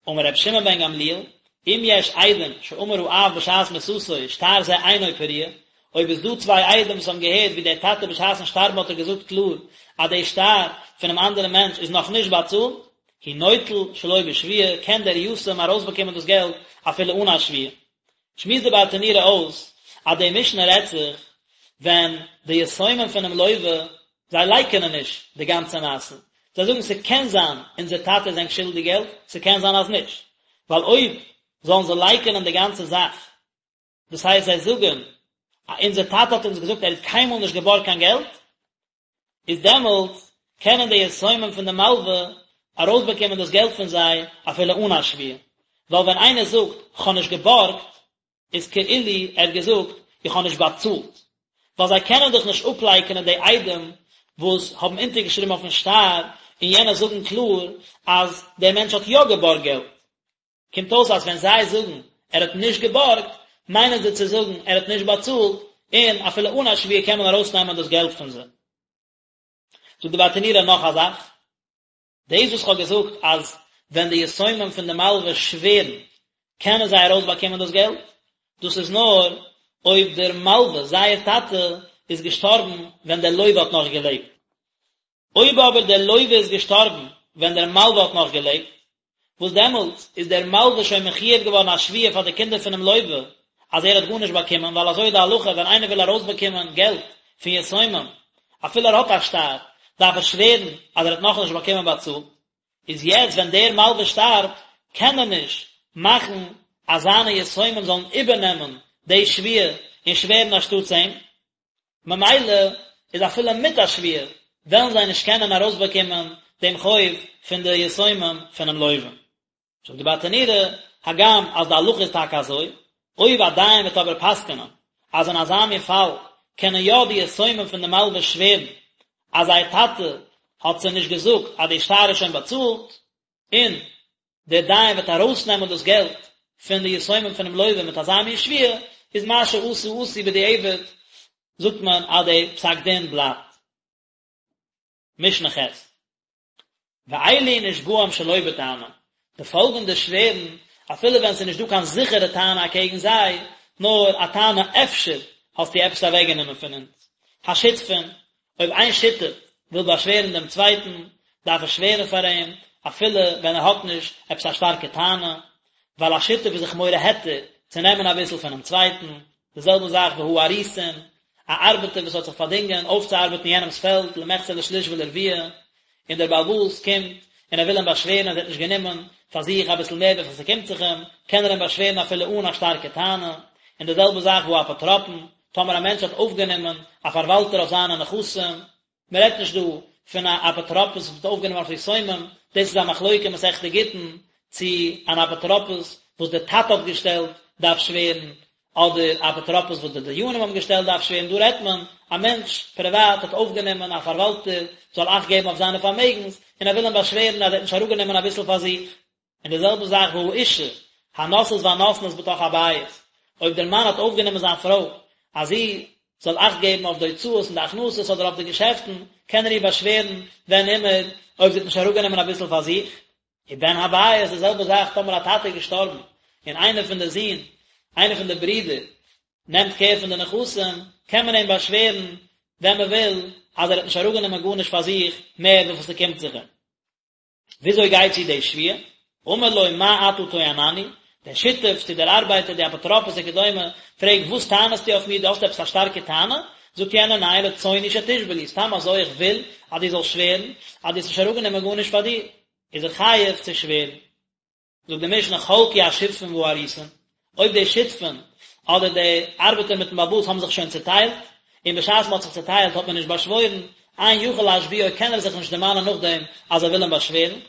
אמר רבי שמעון בן גמליאל, אם יש עדים שאמר האב בשעת מיתתו שטר זה אינו פרוע, אויב איז דא צוויי עדים וואס האבן געהערט ווי דער טאטע בשעת'ן שטארבן האט ער געזאגט קלאר אז די שטר פונעם אנדערן מענטש איז נאך נישט באצאלט, הוא נוטל שלא בשבועה, קען דער יתום ארויסבאקומען דאס געלט אפילו אן א שבועה. שמועסט די ברטנורא אויס אז די משנה רעדט זיך ווען די יתומים פונעם לווה זיי לייקענען נישט די גאנצע מעשה, זיי זאגן ס'קען זיין אונזער טאטע איז ענק שולדיג געלט, ס'קען זיין אז נישט, ווייל אויב זאלן זיי לייקענען די גאנצע זאך, דאס הייסט זיי זאגן אז אונזער טאטע האט אונז געזאגט ער האט קיינמאל נישט געבארגט קיין געלט, איז דעמאלטס קענען די יתומים פון די מלווה ארויסבאקומען דאס געלט פון זיי אפילו אן א שבועה, ווייל ווען איינער זאגט כ'האב נישט געבארגט איז כאילו ער האט געזאגט איך האב נישט באצאלט, ווייל זיי קענען דאך נישט אפלייקענען די עדים וואס האבן אונטערגעשריבן אויפן שטר און יענע זאגן קלאר אז דער מענטש האט יא געבארגט געלט. קומט אויס אז ווען זיי זאגן ער האט נישט געבארגט, מיינען זיי צו זאגן ער האט נישט באצאלט, און אפילו אן א שבועה קען מען ארויסנעמען דאס געלט פון זיי. זאגט די ברטנורא נאך א זאך, דאס וואס כ'האב געזאגט אז ווען די יתומים פון די מלווה שווערן קענען זיי ארויסבאקומען דאס געלט, דאס איז נאר אויב דער מלווה, זייער טאטע, איז געשטארבן ווען דער לווה האט נאך געלעבט. אויב אבער דער לווה איז געשטארבן ווען דער מלווה האט נאך געלעבט, וואס דעמאלטס איז דער מלווה שוין מחויב געווארן א שבועה פאר די קינדער פונעם לווה אז ער האט גארנישט באקומען, ווייל אזוי איז די הלכה ווען איינער וויל ארויסבאקומען געלט פון יתומים, אפילו ער האט א שטר, דארף ער שווערן אז ער האט נאכנישט באקומען באצאלט. איז יעצט ווען דער מלווה שטארבט, קען ער נישט מאכן אז זיינע יתומים זאלן איבערנעמען די שבועה און שווערן אנשטאטס אים, ממילא איז אפילו מיט א שבועה וועלן זיי נישט קענען ארויסבאקומען דעם חוב פון די יתומים פונעם לווה. זאגט די ברטנורא, הגם אז די הלכה איז טאקע אזוי, אויב א דיין וועט אבער פסק'נען אז אין אזא מין פאל קענען יא די יתומים פון די מלווה שווערן אז זייער טאטע האט זיי נישט געזאגט אז די שטר איז שוין באצאלט, און דער דיין וועט ארויסנעמען דאס געלט פון די יתומים פונעם לווה מיט אזא מין שבועה, איז מה שעשו עשו בדיעבד, זאגט מען אז די פסק דין בלייבט. משנה ח'. ואלו נשבעים שלא בטענה, די פאלגענדע שווערן, אפילו ווען ס'איז נישט דא קיין זיכערע טענה אקעגן זיי, נאר א טענה אפשר האסטו עפעס אוועקגענומען פון אונז. השותפין, אויב איין שותף וויל באשווערן דעם צווייטן, דארף ער שווערן פאר אים, אפילו ווען ער האט נישט עפעס א שטארקע טענה, ווייל א שותף איז זיך מורה היתר צו נעמען אביסל פונעם צווייטן, די זעלבע זאך והאריסין, א ארבעטער וואס האט זיך פארדינגען אויפצוארבעטן יענעמ'ס פעלד למחצה לשליש ולרביע, און דער בעל הבית קומט און ער וויל אים באשווערן אז ער האט נישט גענומען פאר זיך אביסל מער וויפיל ס'קומט זיך אים, קען ער אים באשווערן אפילו אן א שטארקע טענה, און די זעלבע זאך והאפוטרופין, טאמער א מענטש האט אויפגענומען א פארוואלטער אויף זיינע נכסים, מען רעדט נישט דא פון א אפוטרופוס וואס האט אויפגענומען אויף יתומים, דאס איז א מחלוקה אין מסכת גיטין, צו אן אפוטרופוס וואס דער טאטע האט געשטעלט דארף שווערן, אדער א אפוטרופוס וואס די דיינים האבן געשטעלט דארף שווערן, דא רעדט מען א מענטש פריוואט האט אויפגענומען א פארוואלטער זאל אכט געבן אויף זיינע פארמעגנס, און ער וויל אים באשווערן אז ער האט נישט אראפגענומען אביסל פאר זיך. און די זעלבע זאך והאשה, הנושאת והנותנת בתוך הבית, אויב דער מאן האט אויפגענומען זיין פרוי אז זי זאל אכט געבן אויף די הוצאות און די הכנסות אדער אויף די געשעפטן, קען ער איר באשווערן ווען אימער, אויב זי האט נישט אראפגענומען אביסל פאר זיך. ובן הבית, די זעלבע זאך טאמער א טאטע איז געשטארבן און איינער פון די זין, איינער פון די ברידער, נעמט קער פון די נכסים, קען מען אים באשווערן ווען מען וויל, אז ער האט נישט אראפגענומען גארנישט פאר זיך מער וויפיל ס'קומט זיך אים. וויאזוי גייט צו די שבועה? אמר לו מה אתה טוענני? דער שותף צו דער ארבייטער, די אפוטרופוס וכדומה, פרעגט וואס טענה'סטו אויף מיר, דו האסט עפעס א שטארקע טענה? זאגט יענער ניין, רצוני שתשבע לי, סתם אזוי איך וויל אז דו זאלסט שווערן אז דו האסט נישט אראפגענומען גארנישט פאר דיר, איז ער חייב צו שווערן. זאגט די משנה חלקו השותפין והאריסין, אויב די שותפין אדער די ארבעטער מיטן בעל הבית האבן זיך שוין צוטיילט, און בשעת מען האט זיך צוטיילט האט מען נישט באשוואוירן, אין יכול להשביעו קען ער זיך נישט דערמאנען נאכדעם אז ער וויל אים באשווערן,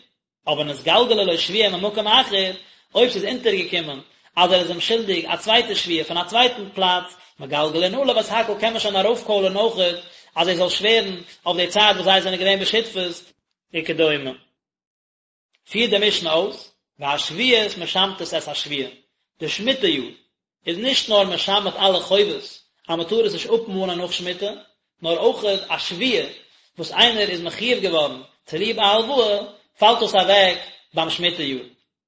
אבער נתגלגלה לו שבועה ממקום אחר, אויב ס'איז אונטערגעקומען אז ער איז אים שולדיג א צווייטע שבועה פון א צווייטן פלאץ, מגלגלין עליו את הכל קען מען שוין ארויפקוילערן אויכעט אז ער זאל שווערן אויף די צייט וואס זיי זענען געווען בשותפות, וכדומה. פירט די משנה אויס, והשביעית משמטת את השבועה, די שמיטה יאר איז נישט נאר משמט אלע חובות אז מען טאר עס נישט אפמאנען נאך שמיטה, נאר אויך א שבועה וואס איינער איז מחויב געווארן צוליב א הלוואה, פאלט דאס אוועק ביים שמיטה יאר.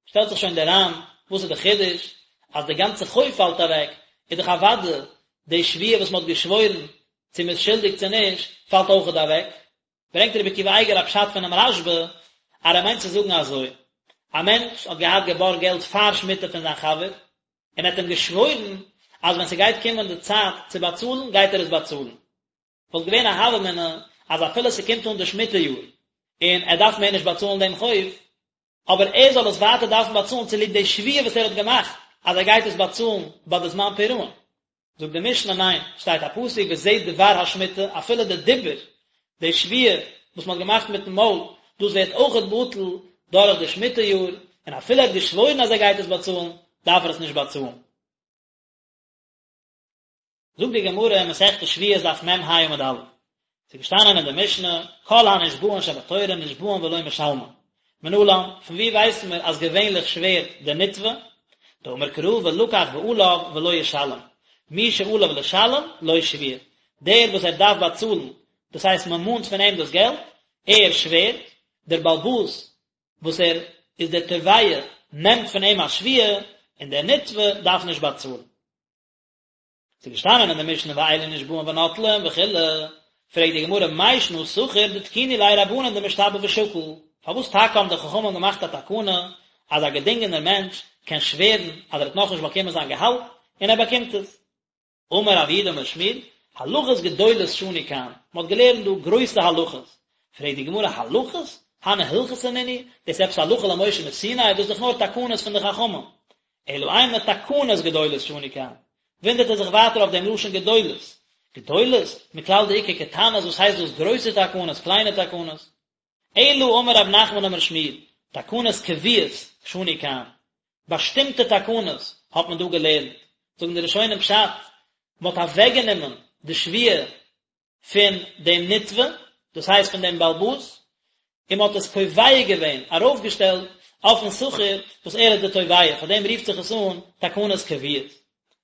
שטעלט זיך שוין דער ר"ן, וואס איז די חידוש אז די גאנצע חוב פאלט אוועק, איז דאך אוודאי די שבועה וואס מען האט געשוואוירן צו מען איז שולדיג צו נישט, פאלט אויכעט אוועק. ברענגט רבי עקיבא אייגער א פשט פונעם רשב"א, אז ער מיינט צו זאגן אזוי, א מענטש האט געהאט געבארגט געלט פאר שמיטה פון זיין חבר, און ער האט אים געשוואוירן אז ווען ס'גייט קומען די צייט צו באצאלן גייט ער עס באצאלן. וואלט געווען א הוה אמינא אז אפילו ס'קומט אן די שמיטה יאר און ער דארף מער נישט באצאלן דעם חוב, אבער ער זאל עס ווייטער דארפן באצאלן צוליב די שבועה וואס ער האט געמאכט אז ער גייט עס באצאלן ביי די זמן פירעון. זאגט די משנה ניין, שטייט א פסוק וזה דבר השמיטה, אפילו די דיבור, די שבועה וואס מען האט געמאכט מיטן מויל, דאס ווערט אויכעט בטל דורך די שמיטה יאר, און אפילו ער האט געשוואוירן אז ער גייט עס באצאלן, דארף ער עס נישט באצאלן. זאגט די גמרא אין מסכת שבועות דף מ"ה עמוד א', ס'איז געשטאנען אין די משנה, כל הנשבעין שבתורה נשבעין ולא משלמין. מנלן, פון וואו ווייסן מיר אז געווענליך שווערט דער נתבע? דאמר קרא ולקח בעליו ולא ישלם, מי שעליו לשלם לו שבועה, דער וואס ער דארף באצאלן, דאס הייסט מען מאנט פון אים דאס געלט, ער שווערט, דער בעל הבית וואס ער איז דער תובע נעמט פון אים א שבועה, און דער נתבע דארף נישט באצאלן. ס'איז געשטאנען אין די משנה ואלו נשבעין ונוטלין וכו', פרעגט די גמרא מאי שנא שכיר דתקינו ליה רבנן דמשתבע ושקיל, פארוואס טאקע האבן די חכמים געמאכט א תקנה אז א געדינגענער מענטש קען שווערן אז ער האט נאכנישט באקומען זיין געהאלט און ער באקומט עס? אמר רב יהודה אמר שמואל, הלכות גדולות שנו כאן, מען האט געלערנט דא גרויסע הלכות, פרעגט די גמרא הלכות? הני הלכתא נינהו, דאס איז עפעס הלכה למשה מסיני, דאס איז דאך נאר תקנות פון די חכמים. אלא אימא תקנות גדולות שנו כאן. וואונדערט ער זיך ווייטער אויף דעם לשון גדולות. גדולות? מכלל דאיכא קטנות וואס הייסט דאס גרויסע תקנות, קליינע תקנות? אלא אמר רב נחמן אמר שמואל, תקנות קבועות שנו כאן. באשטימטע תקנות האט מען דא געלערנט. זאגן די ראשונים פשט, מען האט אוועקגענומען די שבועה פון דעם נתבע, דאס הייסט פון דעם בעל הבית, און מען האט עס קובע געווען, ארויפגעשטעלט, אויפן שכיר, וואס ער איז דער תובע, פאר דעם רופט זיך עס אן תקנות קבועות.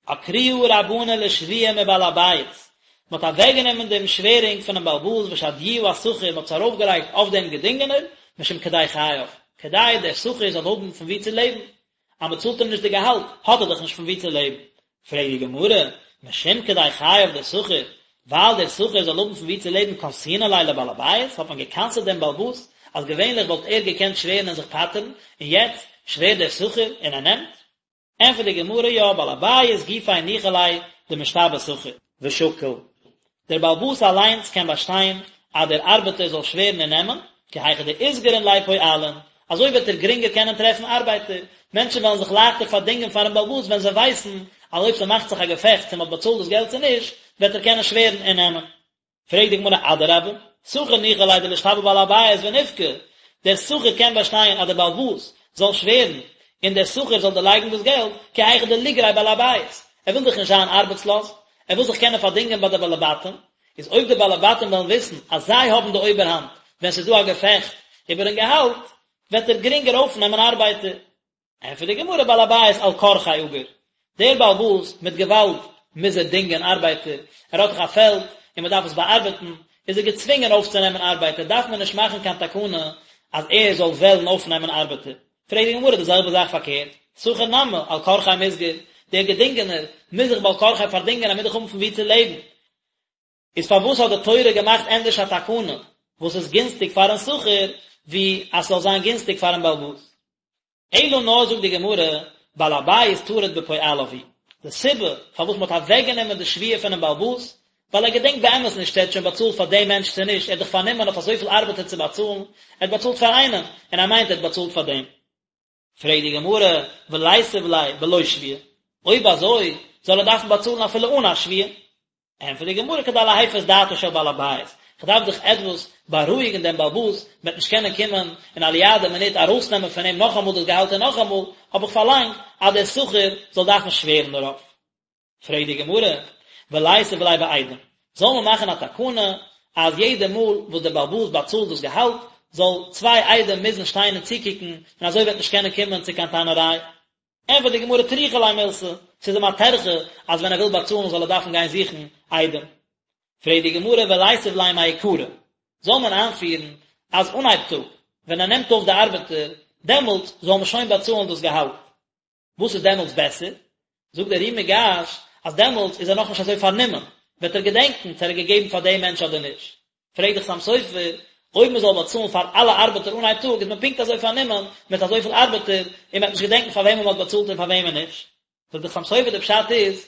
עקרוה רבנן לשבועה מבעל הבית, מען האט אוועקגענומען דעם שווערונג פונעם בעל הבית ושדיוה אשכיר, מען האט עס ארויפגעלייגט אויף דעם געדינגענער, משום כדי חייו, כדי דער שכיר זאל האבן פון וואו צו לעבן, אז מען צאלט אים נישט די געהאלט, האט ער דאך נישט פון וואו צו לעבן. פרעגט די גמרא, משום כדי חייו דשכיר, ווייל דער שכיר זאל האבן פון וואו צו לעבן קנסינן ליה לבעל הבית, האט מען גע'קנס'עט דעם בעל הבית, אז געווענליך וואלט ער געקענט שווערן און זיך פטר'ן, און יעצט שווערט דער שכיר און ער נעמט? ענטפערט די גמרא, יא, בעל הבית גופיה ניחא ליה דמשתבע שכיר. ושקיל, דער בעל הבית אליינס קען באשטיין אז דער ארבעטער זאל שווערן און נעמען, כי היכי דאיתגרון ליה פועלין, אזוי וועט ער גרינגער קענען טרעפן ארבייטער, מענטשן וועלן זיך לייכטער פארדינגען פארן בעל הבית ווען זיי ווייסן אז אויב ס'מאכט זיך א געפעכט צו מ'האט באצאלט דאס געלט צו נישט, וועט ער קענען שווערן און נעמען. פרעגט די גמרא אדרבה, שכיר ניחא ליה דלישתבע בעל הבית וניפקי, דער שכיר קען באשטיין אז דער בעל הבית זאל שווערן און דער שכיר זאל דערלייגן דאס געלט, כי היכי דליגריה בעל הבית, ער וויל דאך נישט זיין ארבעטסלאז, ער וויל זיך קענען פארדינגען ביי די בעלי בתים, איז אויב די בעלי בתים וועלן וויסן אז זיי האבן די אויבערהאנט ווען ס'איז דא א געפעכט איבערן געהאלט, וועט ער גרינגער אויפנעמען ארבייטער. ענטפערט די גמרא בעל הבית על כרחיה אגר, דער בעל הבית מיט געוואלד מוז ער דינגען ארבייטער, ער האט דאך א פעלד און מען דארף עס באארבעטן, איז ער געצווינגען אויפצונעמען ארבייטער, דארף מען נישט מאכן קיין תקנה אז ער זאל וועלן אויפנעמען ארבעטער. פרעגט די גמרא די זעלבע זאך פארקערט, שכיר נמי על כרחיה מיתגר, דער געדינגענער מוז זיך בעל כרחיה פארדינגען ער מוז דאך האבן פון וואו צו לעבן, איז פארוואס האט די תורה געמאכט ענדערש א תקנה וואס איז גינסטיג פארן שכיר ווי אז ס'זאל זיין גינסטיג פארן בעל הבית? אלא נאר זאגט די גמרא, בעל הבית טרוד בפועליו הוא, די סיבה פארוואס מ'האט אוועקגענומען די שבועה פונעם בעל הבית, ווייל ער געדענקט באמת נישט צו ער האט שוין באצאלט פאר דעם מענטש צו נישט, ער האט דאך פארנומען אויף אזויפיל ארבעטער צו באצאלן, ער האט באצאלט פאר איינעם, און ער מיינט ער האט באצאלט פאר דעם. פרעגט די גמרא, וליתיב ליה בלא שבועה, אויב אזוי זאל ער דארפן באצאלן אפילו אן א שבועה? ענטפערט די גמרא, כדי להפיס דעתו של בעל הבית, כ'דארף דאך עטוואס בארואיגן דעם בעל הבית, מ'וועט נישט קענען קומען און א ליאדע מינוט ארויסנעמען פון אים נאכאמאל דאס געהאלט און נאכאמאל, האב איך פארלאנגט אז דער שכיר זאל דארפן שווערן דערויף. פרעגט די גמרא, וליתיב ליה בעדים, זאל מען מאכן א תקנה אז יעדע מאל וואס דער בעל הבית באצאלט דאס געהאלט, זאל צוויי עדים מוזן שטיין און צוקוקן, און אזוי וועט נישט קענען קומען צו קיין טענה'ריי. ענטפערט די גמרא טריחא ליה מילתא, ס'איז אים א טרחה אז ווען ער וויל באצאלן זאל ער דארפן גיין זוכן עדים. פרעגט די גמרא וליתיב ליה מעיקרא, זאל מען איינפירן אז אנהייב טאג ווען ער נעמט אויף די ארבעטער, דעמאלט זאל מען שוין באצאלן דאס געהאלט. וואס איז דעמאלטס בעסער? זאגט דער ר"י מיגאש אז דעמאלטס איז ער נאכנישט אזוי פארנומען, וועט ער געדענקן צו ער האט געגעבן פאר דעם מענטש אדער נישט. פרעגט דער חתם סופר, אויב מען זאל באצאלן פאר אלע ארבעטער אנהייב טאג איז מען פונקט אזוי פארנומען מיט אזויפיל ארבעטער און מען וועט נישט געדענקן פאר וועמען מען האט באצאלט און פאר וועמען נישט. זאגט דער חתם סופר די פשט איז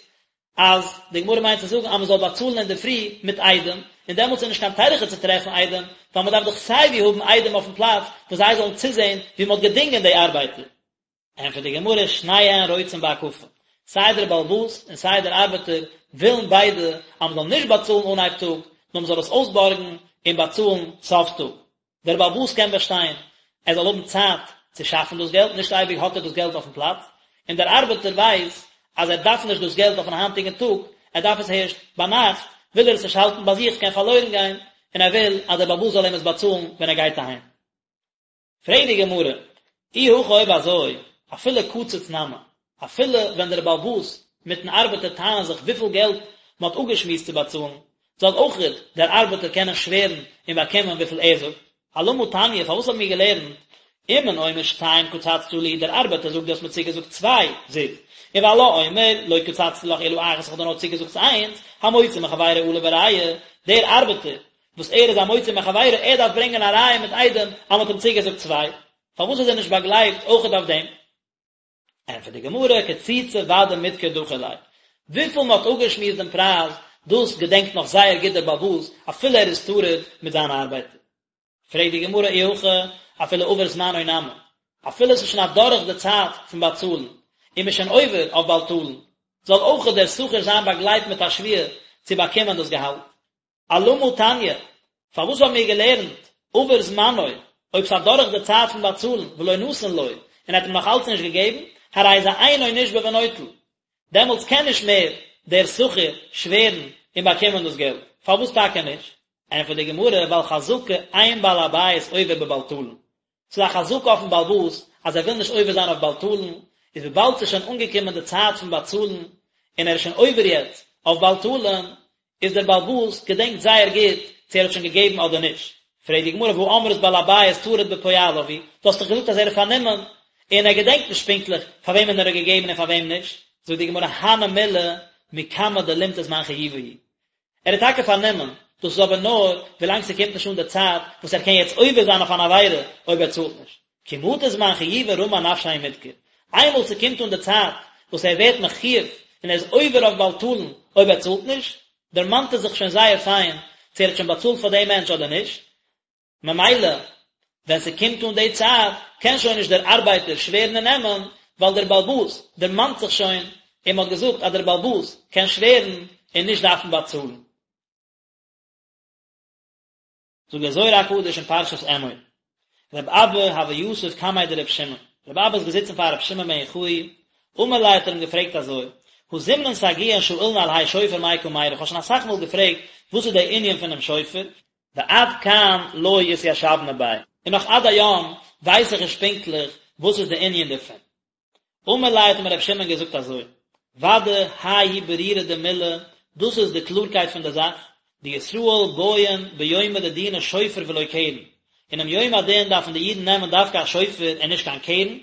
אז די גמרא מיינט צו זאגן אז מען זאל באצאלן אינדערפרי מיט עדים, און דעמאלטס איז נישט קיין טרחה צו טרעפן עדים, ווייל מען דארף דאך סייווי האבן עדים אויפן פלאץ וואס זיי זאלן צוזען ווי מען האט געדינגען די ארבייטער. ענטפערט די גמרא, שניהן רוצין בהקפה, סיי דער בעל הבית און סיי דער ארבעטער ווילן ביידע אז מען זאל נישט באצאלן אנהייב טאג, נאר מען זאל עס אויסבארגן און באצאלן סוף טאג. דער בעל הבית קען באשטיין ער זאל האבן צייט צו שאפן דאס געלט, נישט אייביג האט ער דאס געלט אויפן פלאץ, און דער ארבעטער ווייסט אז ער דארף נישט דאס געלט אויפן היינטיגן טאג, ער דארף עס הערשט ביינאכט, וויל ער עס נישט האלטן ביי זיך, ס'קען פארלוירן גיין, און ער וויל אז דער בעל הבית זאל אים עס באצאלן ווען ער גייט אהיים. פרעגט די גמרא, אי הכי אויב אזוי, אפילו קצץ נמי, אפילו ווען דער בעל הבית מיטן ארבעטער טענה'ן זיך וויפיל געלט מען האט אפגעשמועסט צו באצאלן, זאל אויכעט דער ארבעטער קענען שווערן און באקומען וויפיל ער זאגט. אלמה תניא, פארוואס האבן מיר געלערנט, אומן אומר שתיים קצצת לי, דער ארבעטער זאגט דו האסט מיר צוגעזאגט צוויי זוז, ובעלה אומר לא קצצתי לך אלא אחת איך האב דיר נאר צוגעזאגט איינס, המוציא מחבירו עליו הראיה, דער ארבעטער וואס ער איז א מוציא מחבירו, ער דארף ברענגען א ראיה מיט עדים אז מען האט אים צוגעזאגט צוויי, פארוואס איז ער נישט באגלייבט אויכעט אויף דעם? ענטפערט די גמרא, קצוצי ודאי מדכר דכיר ליה, וויפיל מען האט אפגעשמועסט דעם פרייז, דאס געדענקט נאך זייער גוט דער בעל הבית, אפילו ער איז טרוד מיט זיינע ארבייטער. פרעגט די גמרא אי הכי אפילו עבר זמנו נמי, אפילו עס איז שוין אדורך די צייט פון באצאלן, און מען איז שוין עובר אויף בל תלין, זאל אויכעט דער שכיר זיין באגלייבט מיט א שבועה צו באקומען דאס געהאלט. אלמה תניא, פארוואס האבן מיר געלערנט עבר זמנו, אויב ס'איז אדורך די צייט פון באצאלן, ולא נתן לו, און ער האט אים נאך אלץ נישט געגעבן, הרי זה אינו נשבע ונוטל, דעמאלטס קען נישט מער דער שכיר שווערן און באקומען דאס געלט, פארוואס טאקע נישט? ענטפערט די גמרא, ווייל חזקה אין בעל הבית עובר בבל תלין, ס'איז א חזקה אויפן בעל הבית אז ער וויל נישט עובר זיין אויף בל תלין, איז וויבאלד ס'איז שוין אנגעקומען די צייט פון באצאלן און ער איז שוין עובר יעצט אויף בל תלין, איז דער בעל הבית געדענקט זייער גוט צו ער האט שוין געגעבן אדער נישט. פרעגט די גמרא והא אמרת בעל הבית טרוד בפועליו הוא, דו האסט דאך געזאגט אז ער איז פארנומען און ער געדענקט נישט פונקטליך פאר וועמען ער האט געגעבן און פאר וועם נישט, זאגט די גמרא הני מילי מקמי דלימטי זמן חיובא הוא, ער איז טאקע פארנומען, דאס איז אבער נאר ווילאנג ס'קומט נישט אן די צייט וואס ער קען יעצט עובר זיין אויף אן עבירה אויב ער צאלט נישט. כי מטא זמן חיובא רמי אנפשיה ומדכר. איינמאל ס'קומט אן די צייט וואס ער ווערט מחויב און ער איז עובר אויף בל תלין אויב ער צאלט נישט, דערמאנט ער זיך שוין זייער פיין צו ער האט שוין באצאלט פאר דעם מענטש אדער נישט, ממילא ווען ס'קומט אן די צייט קען שוין נישט דער ארבייטער שווערן און נעמען, ווייל דער בעל הבית דערמאנט זיך שוין און מ'האט געזאגט אז דער בעל הבית קען שווערן און נישט דארפן באצאלן. זאגט דער זוהר הקדוש אין פרשת אמור, רב אבא הוה יתיב קמיה דרב שמעון, רב אבא איז געזיצן פאר רב שמעון בן יוחאי, אמר ליה האט ער אים געפרעגט אזוי, הא זימנין סגיאין שאילנא על האי שופר מאי קא מיירי, איך האב שוין אסאך מאל געפרעגט וואס איז דער ענין פונעם שופר, ועד כאן לא אתיישבנא ביה, און נאך עד היום ווייס איך נישט פונקטליך וואס איז די ענין דערפון. אמר ליה האט אים רבי שמעון געזאגט אזוי, ודאי האי הוא ברירא דמילי, דאס איז די קלארקייט פון די זאך, דישראל בעיין ביומא דדינא שופר ולא קרן, אינעם יום הדין דארפן די אידן נעמען דווקא א שופר און נישט קיין קרן,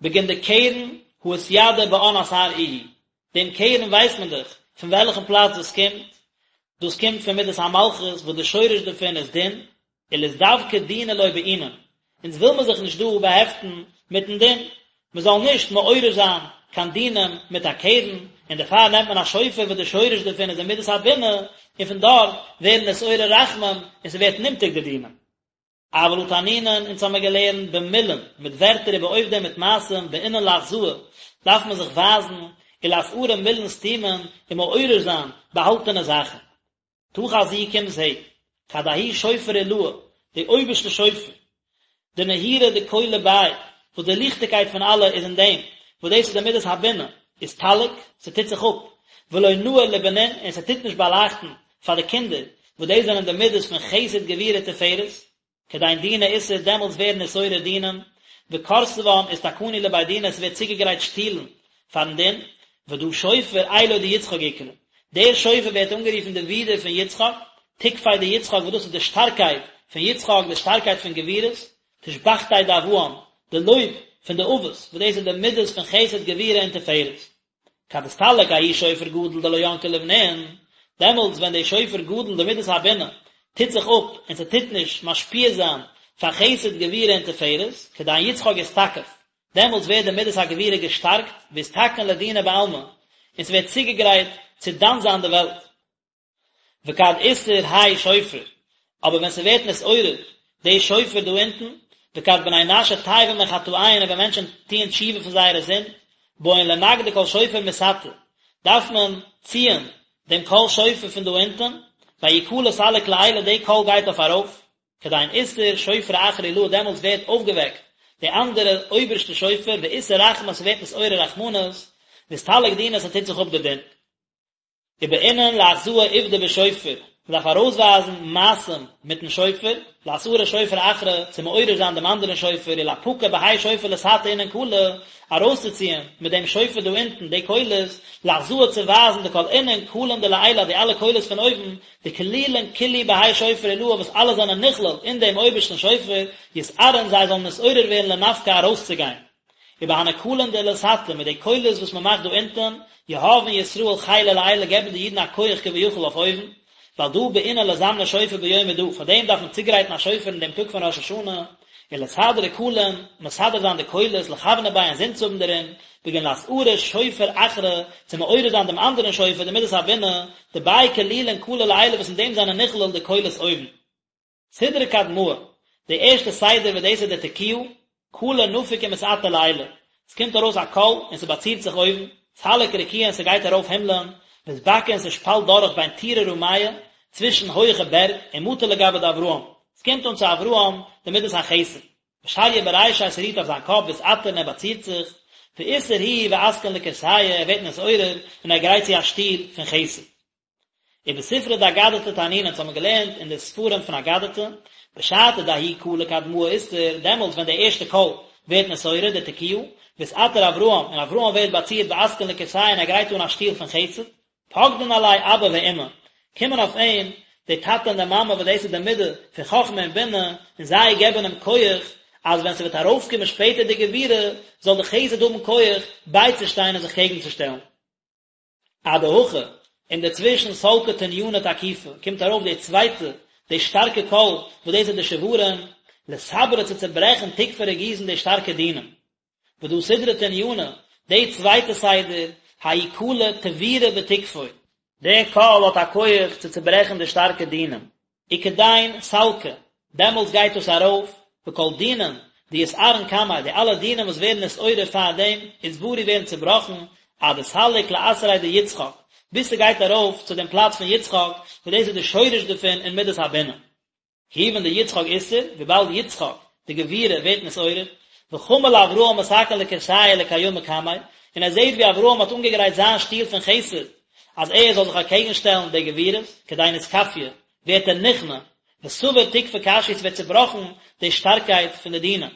בגין דקרן הא אתידע באן אתר איהו, דעם קרן ווייסט מען דאך פון וועלכן פלאץ דאס קומט, דאס קומט פון מידת המלכות וואס די שורש דערפון איז דין, ולאתדבקא דינא לא בעינן, אונז וויל מען זיך נישט דא באהעפטן מיטן דין, מען זאל נישט מעורר זיין קיין דינים מיט א קרן, און דערפאר נעמט מען א שופר וואס די שורש דערפון איז די מידת הבינה, און פון דארט ווערן נתעורר רחמים און ס'ווערט נמתק די דינים. אבל הא תנינן, אונז האמיר געלערנט במילין, מיט ווערטער ובעובדא מיט מעשים, בעינן לאחזאה, דארף מען זיך ווייזן, ולאתערא מילין סתימין, און מעורר זיין באהאלטענע זאכן. תא חזי קום זע, כד ההוא שופר עילאה, די אויבערשטע שופר, דנהירא דכולא ביה, וואס די ליכטיגקייט פון אלע איז אין דעם, וואס דאס איז די מידת הבינה, אסתלק, ס'טוט זיך אפ, ולא נהיר לבנין, און ס'טוט נישט באלייכטן פאר די קינדער, וואס דאס זענען די מידות פון חסד גבורה תפארת, כדין דינא אתער דעמאלטס ווערן נתעורר דינים, וכורסוון אתתקנו לבי דינא עס ווערט צוגעגרייט שטולן פארן דין, ודא שופר אילו דיצחק אקרי, דער שופר ווערט אנגערופן די ווידער פון יצחק, תוקפיה דיצחק וואס דאס איז די שטארקייט פון יצחק, די שטארקייט פון גבורות, תושבחתיה דאבהן, די לויב פון די אבות, וואס דאס איז די מידות פון חסד גבורה און תפארת. כד אסתלק ההוא שופר גדול דלא ינקי לבנין, דעמאלטס ווען די שופר גדול די מידת הבינה טוט זיך אפ און ס'טוט נישט משפיע זיין פאר חסד גבורה און תפארת, כדין יצחק אתתקף, דעמאלטס ווערט די מידת הגבורה געשטארקט, ואתתקן לדינא בעלמא, און ס'ווערט צוגעגרייט צו דן זיין די וועלט. וכד אתער האי שופר, אבער ווען ס'ווערט נתעורר די שופר דא אונטן, וכד בני נשא תייבין מחטאיהון און ווען מענטשן טוען תשובה פון זייערע זינד, בעיין לנגדא קול שופר מתתא, דארף מען ציען דעם קול שופר פון דא אונטן, וההוא קלא סליק לעילא די קול גייט אויף ארויף, כדין אתער שופרא אחרא עילאה דעמאלטס ווערט אויפגעוועקט די אנדערע אויבערשטע שופר, ואתער רחמי ס'ווערט נתעורר רחמנות, ואסתלק דינא ס'טוט זיך אפ די דין. ובעינן לאחזאה עובדא בשופר, מען דארף ארויסווייזן מעשים מיטן שופר, לאתערא שופרא אחרא, צו מעורר זיין דעם אנדערן שופר, ולאפקא בהאי שופר לתתא אינון קלי, ארויסצוציען מיט דעם שופר דא אונטן די קולות, לאחזאה צו ווייזן דכל אינון קלין דלעילא די אלע קולות פון אויבן, דכלילין כולהו בהאי שופר עילאה וואס אלע זענען נכלל אין דעם אויבערשטן שופר, יתערון זיי זאלן נתעורר ווערן לנפקא ארויסצוגיין. ובהני קלין דלתתא, מיט די קולות וואס מען מאכט דא אונטען, יהבין ישראל חילא לעילא געבן די אידן א כח כביכול אויף אויבן, ועל דא בעינן לזמנא שופר ביומא דא, פאר דעם דארף מען צוגרייטן א שופר אין דעם טאג פון ראש השנה, ולסדרא קלין, מסדר זיין די קולות, לכוונא ביה אינזין צו האבן דערין, בגין לאתערא שופר אחרא, צו מעורר זיין דעם אנדערן שופר, די מידת הבינה, דביה כלילין קלי לעילא וואס אין דעם זענען נכלל די קולות אויבן. סדרא קדמאה. די ערשטע סדר וואס דאס איז די תקיעה, קלא נפיק ומתעטר לעילא, עס קומט ארויס א קול און ס'באצירט זיך אויבן, סליק רקיעא און ס'גייט ארויף הימלען, ואתבקע און ס'שפאלט דורך בין טורי רמיא, צווישן הויעכע בערג, ומטא לגביה דאברהם, ס'קומט אן צו אברהם די מידת החסד, ושריא ברישיה ס'רוהט אויף זיין קאפ ואתעטר און ער באצירט זיך, ואתער הוא ואתקין לכורסיא ער ווערט נתעורר און ער גרייט צו א שטול פון חסד. ובספרא דאגדתא תנינן אונז האבן געלערנט אין די ספרים פון אגדתא, בשעתא דההוא קלא קדמאה אתער, דעמאלטס ווען די ערשטע קול ווערט נתעורר, די תקיעה, ואתעטר אברהם, און אברהם ווערט באצירט ואתקין לכורסיא און ער גרייט אן א שטול פון חסד, פקדין עליה אבא ואמא, קומען אויף אים די טאטע און די מאמע וואס דאס איז די מידה פון חכמה און בינה, און זיי געבן אים כח אז ווען ס'וועט ארויפקומען שפעטער די גבורה, זאל די חסד האבן כח בייצושטיין און זיך קעגנצושטעלן. אדהכי, אינדערצווישן סלקא תניינא תקיפא, קומט ארויף די צווייטע, די שטארקע קול, וואס דאס איז די שברים, לסברא צו צעברעכן תוקפי רגיזין די שטארקע דינים. ודא סדרא תניינא, די צווייטע סדר, ההוא קלא תבירא בתוקפוי. די קול האט א כח צו צעברעכן די שטארקע דינים. וכדין סלקא, דעמאלטס גייט דאס ארויף, וכל דינין דאתערון קמיה, די אלע דינים וואס ווערן נתעורר פאר דעם, אתברו ווערן צובראכן, עד דסליק לאתריה דיצחק, ביז ס'גייט ארויף צו דעם פלאץ פון יצחק, וואס דאס איז די שורש דערפון אין מידת הבינה. כיוון דיצחק אתער, וויבאלד יצחק, די גבורה, ווערט נתעורר, וחמא לאברהם מתקן לכורסיא לקיומא קמיה, און ער זעט ווי אברהם האט אנגעגרייט זיין שטול פון חסד, אז ער זאל זיך אקעגן שטעלן די גבורות, כדין אתכפיא, ווערט ער נכנע, וסבר תוקפא קשיא ס'ווערט צובראכן די שטארקייט פון די דינים.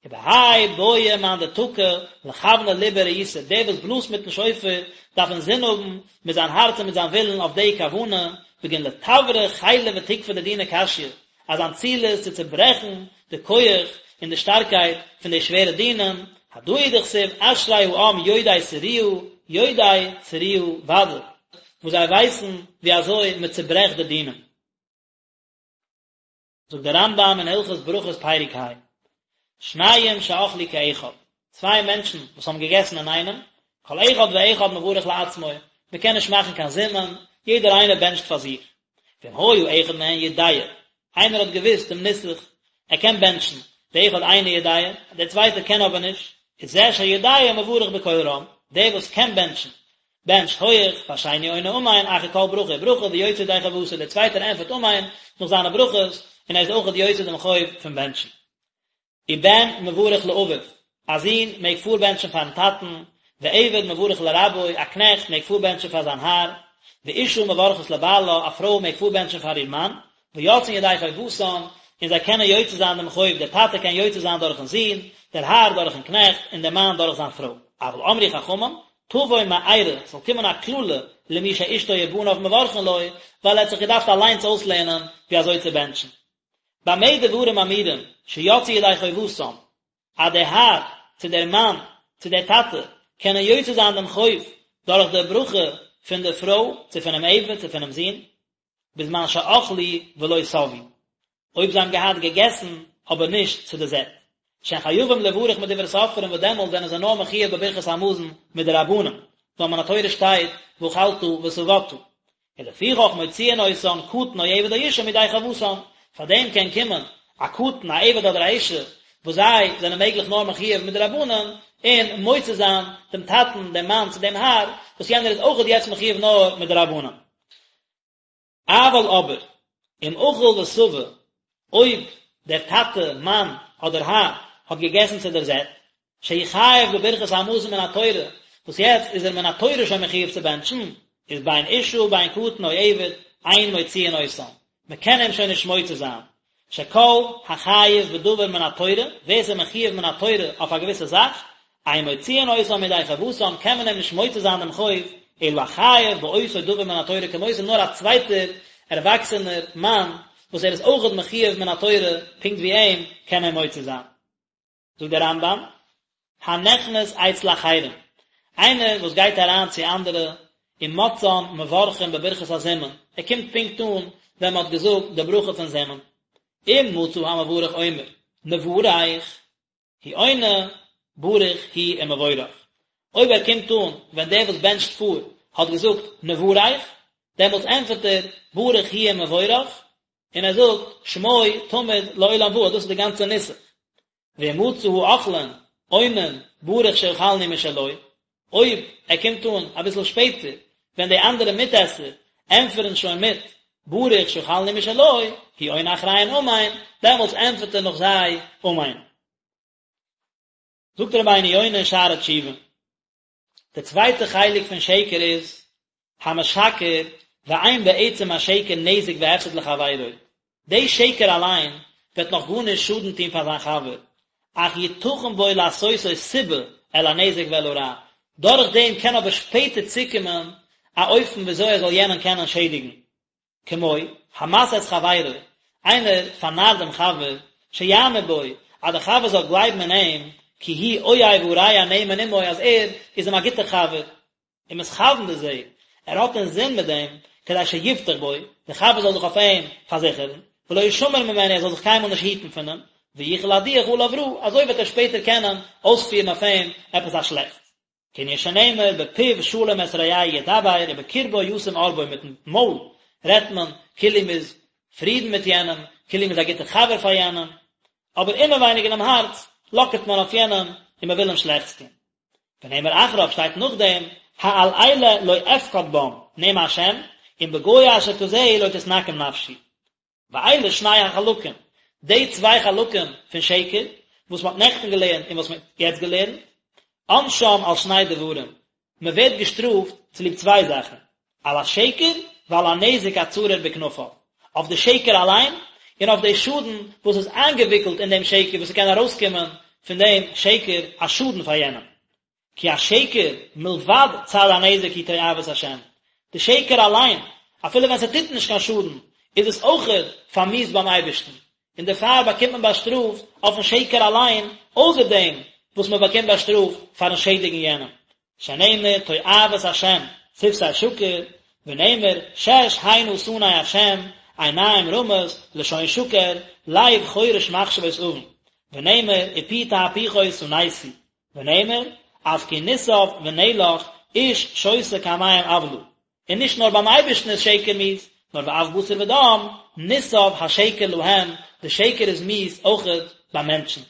ובהאי בעי מאן דתקע לכוונא לביה רעותא, דער וואס בלאזט מיטן שופר דארף אינזין האבן מיט זיין הארץ און מיט זיין ווילן אויף די כוונה, בגין לתברא חילא ותוקפא דדינא קשיא, אז זיין ציל איז צו צוברעכן די כח און די שטארקייט פון די שווערע דינים, הדא הוא דכתיב אשרי העם יודעי תרועה, יודעי תרועה ודאי, וואס זיי ווייסן ווי אזוי מען צוברעכט די דינים. זאגט דער רמב"ם אין הלכות ברכות פרק ה, שניים שאכלו כאחד, צוויי מענטשן וואס האבן געגעסן אינאיינעם, כל אחד ואחד מברך לעצמו, מען קען נישט מאכן קיין זימון, יעדער איינער בענטשט פאר זיך. ואם היה אחד מהן יודע, איינער האט געוואוסט דעם נוסח, ער קען בענטשן, ואחד אינו יודע, דער צווייטער קען אבער נישט, איז זה שיודע מברך בקול רם, דער וואס קען בענטשן, בענטשט הויעך, והשני עונה אמן אחר כל ברכה וברכה ויוצא ידי חובתו, דער צווייטער ענטפערט אמן נאך זיינע ברכות, און ער איז אויכעט יוצא דעם חוב פון בענטשן. ובן מברך לאביו, א זון מעג פארבענטשן פארן טאטן, ועבד מברך לרבו, א קנעכט מעג פארבענטשן פאר זיין האר, ואשה מברכת לבעלה, א פרוי מעג פארבענטשן פאר איר מאן, ויוצאין ידי חובתן, און זיי קענען יוצא זיין דעם חוב, דער טאטע קען יוצא זיין דורכן זון, דער האר דורכן קנעכט, און דער מאן דורך זיין פרוי. אבל אמרו חכמים, תבוא מארה, ס'זאל קומען א קללה למי שאשתו ובניו מברכין לו, ווייל ער האט זיך געדארפט אליינס אויסלערנען ווי אזוי צו בענטשן. במה דברים אמורים שיצאו ידי חובתם, אז דער האר, צו דער מאן, צו דער טאטע, קענען יוצא זיין דעם חוב דורך דער ברכה פון דער פרוי, צו פונעם עבד, צו פונעם זון, בזמן שאכלו ולא שבעו, אויב זיי האבן געהאט געגעסן אבער נישט צו די זעט, שהן חייבים לברך מדברי סופרים וואס דעמאלט זענען זיי נאר מחויב בברכת המזון מדרבנן, ווייל מן התורה שטייט ואכלת ושבעת. ולפיכך מוציאין אותן קטן או עבד או אשה מידי חובתן, פאר דעם קען קומען א קטן א עבד אדער א אשה וואס זיי זענען מעגליך נאר מחויב מדרבנן, און מוציא זיין דעם טאטן דעם מאן צו דעם האר, וואס יענער איז אויכעט יעצט מחויב נאר מדרבנן. אבל אבער, אם אכל ושבע, אויב דער טאטע, מאן, אדער האר, האט געגעסן צו דער זעט, שהוא חייב בברכת המזון מן התורה, וואס יעצט איז ער מן התורה שוין מחויב צו בענטשן, איז בין אשה בין קטן או עבד, אין מוציאין אותן, מען קען אים שוין נישט מוציא זיין, שכל החייב בדבר מן התורה, ווער ס'איז מחויב מן התורה אויף א געוויסע זאך, אין מוציאין אותו מידי חובתן, קען מען אים נישט מוציא זיין דעם חוב, אלא החייב באותו דבר מן התורה כמותו, נאר א צווייטער ערוואקסענער מאן וואס ער איז אויכעט מחויב מן התורה פונקט ווי אים, קען אים מוציא זיין. זאגט דער רמב"ם, הנכנס אצל אחרים, איינער וואס גייט אריין צו אנדערע, ומצאן מברכין בברכת הזימון, ער קומט פונקט אן ווען מען האט געזאגט די ברכה פון זימון, אם מצא המברך אומר נברך, הוא עונה ברוך הוא ומבורך, אויב ער קומט אן ווען דער וואס בענטשט פאר האט געזאגט נברך, דעמאלטס ענטפערט ער ברוך הוא ומבורך. און ער זאגט שמו תמיד לעולם ועד, דאס איז די גאנצע נוסח. ואם מצא האוכלין עונין ברוך שאכלנו משלו, אויב ער קומט אן אביסל שפעטער ווען די אנדערע מיטעסער ענטפערן שוין מיט ברוך שאכלנו משלו, הוא עונה אחריהן אמן, דעמאלטס ענטפערט ער נאך זיי אמן. זאגט רבינו יונה אין שערי תשובה, די צווייטע חלק פון שקר איז, המשקר ואין בעצם השקר נזק והפסד לחבירו, די שקר אליין וועט נאך גארנישט שאדן טון פאר זיין חבר, אך יתכן בו לעשותו סיבה אל הנזק ואל הרע, דורך דעם קען אבער שפעטער צוקומען א אופן וויאזוי ער זאל יענעם קענען שעדיגן. כמו, המתעה את חברו, איינער פארנארט דעם חבר, שיאמין בו, אז דער חבר זאל גלייבן אין אים, כי הוא אוהב הרע הנאמן עמו, אז ער איז אים א גוטער חבר, ומתכוון בזה, ער האט אינזין מיט דעם, כדי שיבטח בו, דער חבר זאל זיך אויף אים פארזיכערן, ולא ישמר ממנו, ער זאל זיך קיינמאל נישט היטן פון אים, ויוכל להדיח עליו רע, אזוי וועט ער שפעטער קענען אויספירן אויף אים עפעס א שלעכטס. כענין שנאמר בפיו שלום את רעהו ידבר ובקרבו ישים ארבו מיטן מויל רעדט מען כאילו מ'איז פרידן מיט יענעם, כאילו מ'איז א גוטער חבר פאר יענעם, אבער אינעווייניג אינעם הארץ לאקערט מען אויף יענעם און מ'וויל אים שלעכטס טון. ונאמר אחריו שטייט נאכדעם העל אלה לא אפקד בם נאם השם אם בגוי אשר כזה לא תתנקם נפשי. ואלה שני החלקים, די צוויי חלקים פון שקר, וואס מען האט נעכטן געלערנט און וואס מען האט יעצט געלערנט, עונשם על שני דברים, מען ווערט געשטראפט צוליב צוויי זאכן, על השקר ועל הנזק הצרור בכנפיו, אויף די שקר אליין, און אויף די שאדן וואס איז איינגעוויקלט אין דעם שקר, וואס ס'קען ארויסקומען פון דעם שקר א שאדן פאר יענעם. כי השקר מלבד צד הנזק היא תועבת השם, די שקר אליין, אפילו ווען ס'טוט נישט קיין שאדן, איז עס אויכעט פארמיאוסט ביים אייבערשטן, און דערפאר באקומט מען באשטראפט אויפן שקר אליין, אויסער דעם וואס מען באקומט באשטראפט פארן שעדיגן יענעם, שנאמר תועבת השם שפתי שקר, ונאמר שש הנה שנא השם, עיניים רמות, לשון שקר, לב חורש מחשבות און, ונאמר ופי תהפוכות שנאתי, ונאמר, אף כי נתעב ונאלח, איש שותה כמים עוולה. און נישט נאר ביים אייבערשטן איז שקר מיאוס, נאר ואף בשר ודם, נתעב השקר להם, די שקר איז מיאוס אויכעט ביי מענטשן.